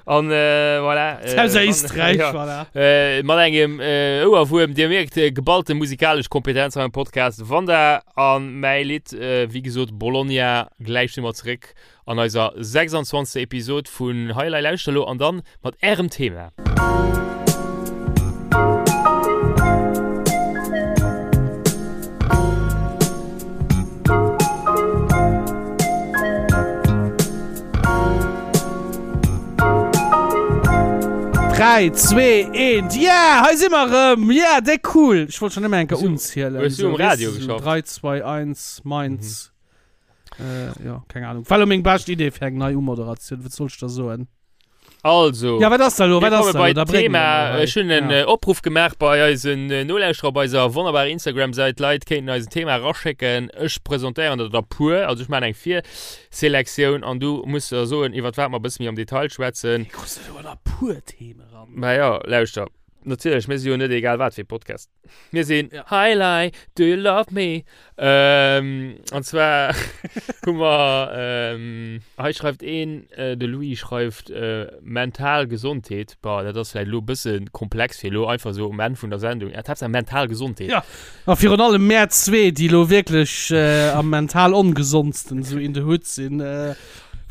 An äh, voilà. Äh, Aus Éisträich, ja. voilà. Äh, mat engem äh, Ouerwuerm, Dir mierkt, äh, geballte musikalesch Kompetenz am Podcast. Wanda an mäi Lidd, äh, wéi gesot, Bologna, gläich si mer zeréck an eiser 26. Episod vun Hei Elei Lauschter elo an dann mat ärem Thema. Dräi, zwee, eent, yeah! Hei si mer erëm! Yeah, déck cool! Ech wollt schon ëmmer eng Kéier unzielen. Hues du um Radio geschafft? 3, 2, 1, meins. Mhm. Jo, keng Ahnung. War lo meng bescht Idee fir eng nei Umoderatioun, wat soll ech der soen? Also, ja, wat ass da lo? Wat ass da lo? Da Thema. Ech hunn en ja. Opruff gemaach bei eisen äh, Nolauschterer op eiser wonnerbarer Instagram-Säit. Leit kéinten eis en Thema raschécken. Ech presentéieren der der puer. Also ech maachen eng Virselektioun an du muss der soen, iwwer wat mer e bësse méi am Detail schwätzen. Wéi kriss du do der puer Theme ran? Ma ja, lauschter. Natierlech, mir si jo net egal wat fir Podcast. Mir sinn ja. Hi Lai, do you love me? Ähm, an zwar hu mer ähm, hei schreift een, äh, de Louis schreift äh, mental Gesondheet. Boah, dat ass vläicht elo e bësse komplex fir elo einfach sou um Enn vun der Sendung. Ja, Haaptsaach mental Gesondheet. Ja, a virun allem mär zwee, déi elo wierklech äh, am mental ongesondsten sou in the hood sinn, äh,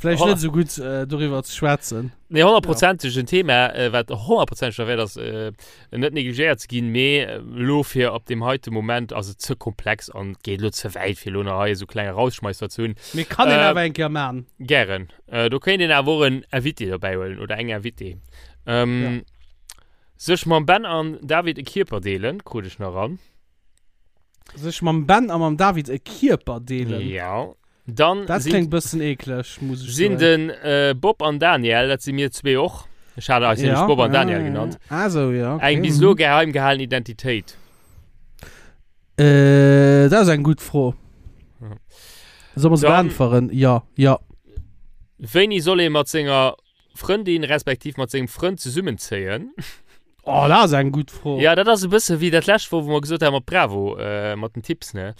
vläicht net sou gutt äh, doriwwer ze schwätzen. Nee, honnertprozenteg en Thema, äh, wat honnertprozenteg derwäert ass, äh, net negligéiert ze ginn, mee elo fir op deem heite Moment ass et ze komplex an geet elo ze wäit, fir elo nach hei esou kleng Erausschmeisser ze hunn. Mee kann een awer eng Kéier man. Gären. Do kéint een awer och en Invité dobäi huelen oder eng Invitée. Sech mam Ben an David e Kierper deelen, krut ech nach eran. Sech mam Ben a mam David e Kierper deelen? Jo. Dann Dat sinn, kléngt bëssen eekleg, muss ech sinn soen. den äh, Bob an Daniel, dat si mir zwee och. Ech hat eis nämlech Ja, Bob an ja, Daniel ja, genannt. ja. Ah, so, ja, okay. Eng bis elo Mhm. geheim gehalen Identitéit. Äh, dat ass eng gutt Fro. Ja. Soll mer se Dann- beäntweren? Ja, ja. Wéini soll ee mat senger Frëndin respektiv mat sengem Frënd zesummenzéien? Oh, dat ass eng gutt Fro. Ja, dat ass e bësse wéi dat lescht Woch, wou mer gesot haben mat Bravo, äh, mat den Tipps, ne?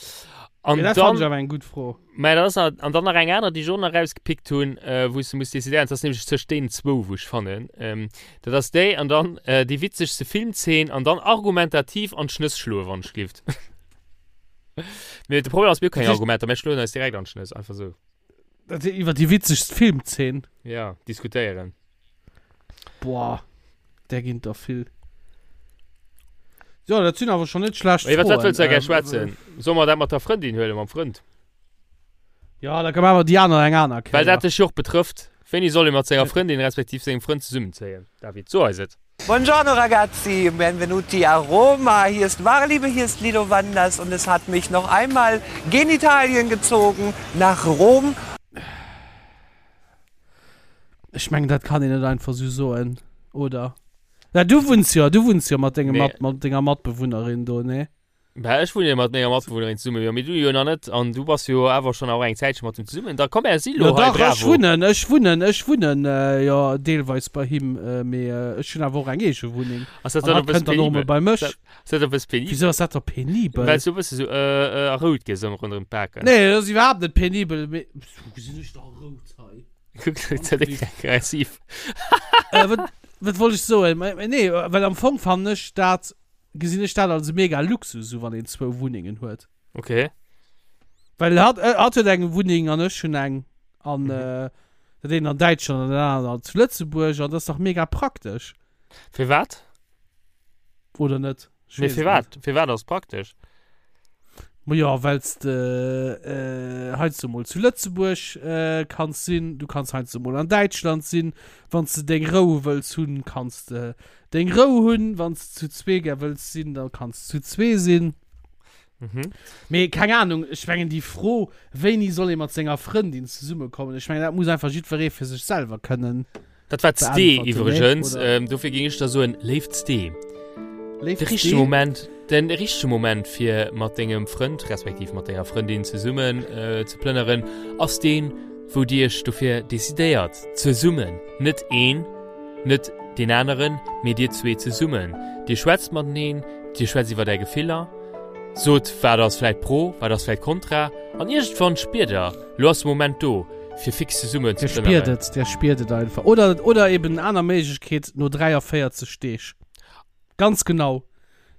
An Ja, dat fand dann, ech awer eng gutt Fro. mä dat ass nach, an dann nach eng aner, déi ech och nach rausgepickt hunn, äh, wou s de muss decidéieren, dat ass nämlech tëscht deenen zwou, wou ech fannen, ähm, dat ass déi an dann äh, déi witzegste Filmzeen an dann argumentativ an d'Schnëss schloen, wann ech glift. Mee de Problem ass, mir hu keng Argumenter, mir schloen eis direkt an d'Schnëss, einfach sou. Dat iwwer déi witzegst Filmzeen. Ja, diskutéieren. Boah, där ginn der vill. Jo, dat sinn awer schon net schlecht Iwwer wat wëlls du da gär Froen. schwätzen? Solle mer dat mat der Frëndin huelen, mam Frënd? Ja, da maache mer déi aner eng aner Well Kéier. dat dech jo och betrëfft. Wéini soll ee mat senger Frëndin respektiv sengem Frënd zesummenzéien? David, so eis et. Buongiorno ragazzi, benvenuti a Roma. Hier ist Wahre Liebe, hier ist Lido Wanders und es hat mich noch einmal gen Italien gezogen, nach Rom. Ech mengen dat kann een net einfach sou soen, oder? Ja, du wunns jo, du wunns jo mat dengem, Nee. mat, mat denger Matbewunnerin do, nee? Bah, ech wunne jo mat menger Matbewunnerin zesummen, jo, mee du jo nach net. An du bass jo awer schonn och eng Zäitche mat him zesummen. Da komm, mär si lo Jo hei, dach, ech bravo. wunnen, ech wunnen, ech wunnen jo deelweis bei him, mee ech hunn awer och eng eege Wunneng. Ass dat An dann hatt e bësse kënnt dann och emol penibel? bei mech. Ass dat e bësse penibel? Wisou ass dat da penibel? Well s du e bësse sou äh, äh, rout gëss ëmmer ronderëm d'Baken. Nee, dat ass iwwerhaapt net penibel, mee wou gesinn ech da rout hei? Kuck, dat ass aggressiv. Äh, wat, wat wollt ech soen? Nee, well am Fong fannen ech dat gesinn ech dat als e mega Luxus u wann een zwou Wunnengen huet. Okay. Well hatt äh, hatt huet eng Wunneng an ech hunn eng an mhm. äh, dat een an Däitschland an den aneren zu Lëtzebuerg an dat ass dach mega praktesch. Firwat? Oder net? Nee, firwat? Firwat ass praktesch? Ma jo, well s de äh, heiansdo mol zu Lëtzebuerg äh, kanns sinn, du kanns heiansdo mol an Däitschland sinn, wann s de deng Rou wëlls hunn, kanns de deng Rou hunn, wann s de zu zwee gär wëlls sinn, da kanns de zu zwee sinn. Mhm. Mee keng Ahnung, ech mengen déi Fro, wéini soll ee mat senger Frëndin zesummekommen, ech mengen dat muss einfach jiddweree fir sech selwer kënnen. Dat war d'Stee Beantworten, iwwregens. ne? Oder? Ähm, dofir géing ech da soen, léift Stee. Léift De richtege Stee? Moment, den richtege Moment fir mat dengem Frënd respektiv mat denger Frëndin zesummen äh, ze plënneren, ass deen, wou dir iech dofir decidéiert, zesummen, net een, net deen aneren, mee dir zwee zesummen. Dir schwätzt mateneen, dir schwätzt iwwer är Gefiller, sot wat ass vläit pro, wat ass vläit kontra an iergendwann spiert der, Lo ass de Moment do, fir fix zesummen ze Der spiert plënneren. et, der spiert et einfach. Oder, oder eben aner Méiglechkeet, no 43 Deeg. Ganz genau.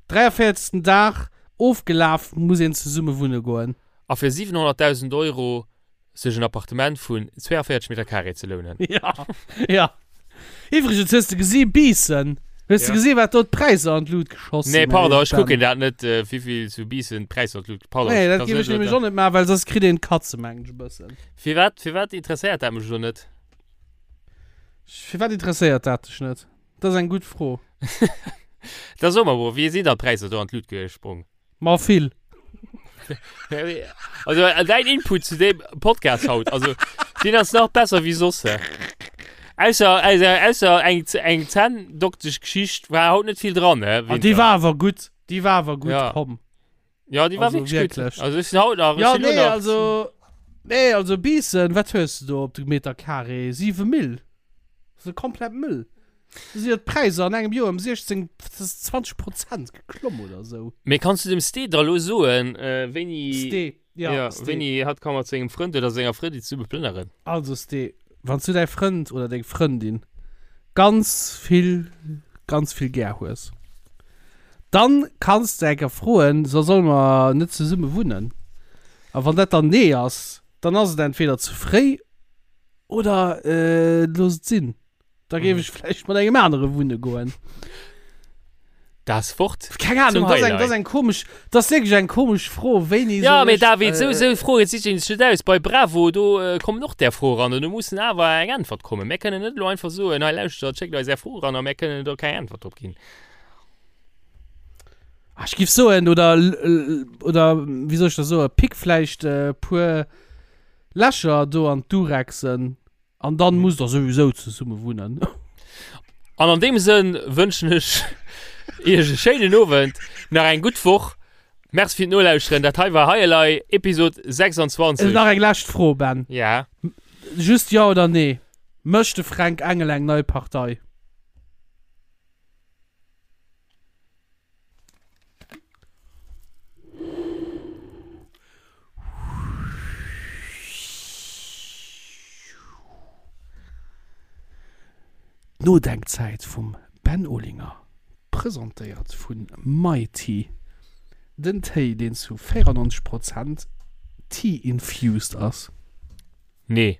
43. Dag ofgelaf, muss een zesumme wunne goen. A fir 700.000 Euro sech en Appartement vun 42 Meter Carré ze lounen. Ja, ja. Iwwregens, hues de gesi Biissen? Hues de Ja. gesi wat do d'Präisser an d'Lut geschoss Nee, sinn? pardon, ech Ben? kucken dat net, äh, wéivill zu Biissen d'Präisser an d'Lut. Pardon, Nee, ech dat kann géif net ech nämlech elo och net maachen, well soss kritt een d'Katze, mengen ech e bëssen. Firwat, firwat interesséiert dat mech elo net? Firwat interesséiert dat dech net? Dat ass eng gutt Fro. Da so mer, Bro, wéi sinn dann d'Präisser do an d'Lut gesprong? Ma vill. Also äh, dein Input zu dem Podcast haut, also den ass nach besser wie soss. Ausser, ausser, ausser eng, eng Zänndoktesch Geschicht war haut net vill dran, ne? Ah, déi war awer gutt. Déi war awer gutt, Ja. komm. Ja, déi war Also wirklich gutt. wirklich. Also ech sinn haut nach, ech Ja, sinn lo nee, nach. also. Nee, also Biissen, wat hues de do op de Meter Carré? 7 Mill. Dat ass komplett Müll. Do sinn jo d'Präisser an engem Joer ëm 16, 20 Prozent geklomm oder esou. Mee kanns du dem Ste da lo soen, wéini. Ste, ja, ja, Ste. wéini hatt ka mat sengem Frënd oder senger Frëndin zesumme plënneren? Also Ste, wann s du däi Frënd oder deng Frëndin ganz vill, ganz vill gär hues, dann kanns de enker froen, so solle mer net zesumme wunnen? A wann dat dann nee ass, dann ass et entweder ze fréi oder looss et sinn. Da géif ech vläicht mat engem anere wunne goen. Das Wort Keng Ahnung, zum das eng, Highlight. das eng komisch, das wirklich eng komisch Fro, wéini Ja, soll mee ech, David, sou, äh, sou Froe si sech net aus. Bei Bravo, do äh, kommen och där Froe ran an do mussen awer eng Äntwert kommen. Mär kënnen net elo einfach soen, hei lauschtert, schéckt eis är Fro ran a mär kënnen do keng Äntwert drop ginn. Ah, ech giff soen, oder, oder, wéi soll ech das soen, pick vläicht äh, puer Lächer do an d'Durexen. An dann musst der souwisou zesumme wunnen. An an deem Sënn wënschen ech Iech e schéinen Owend, nach eng gutt Woch. Merci fir d'Nolauschteren. Dat hei war Hei Elei, Episod 26. Nach eng lescht Fro, Ben. Ja. Just Jo oder Nee, Mécht de Fränk Engel eng nei Partei? D'Nodenkzäit vum Ben Olinger, presentéiert vu MyTea, den Téi deen zu 94 Prozent Tea-infused ass. Nee.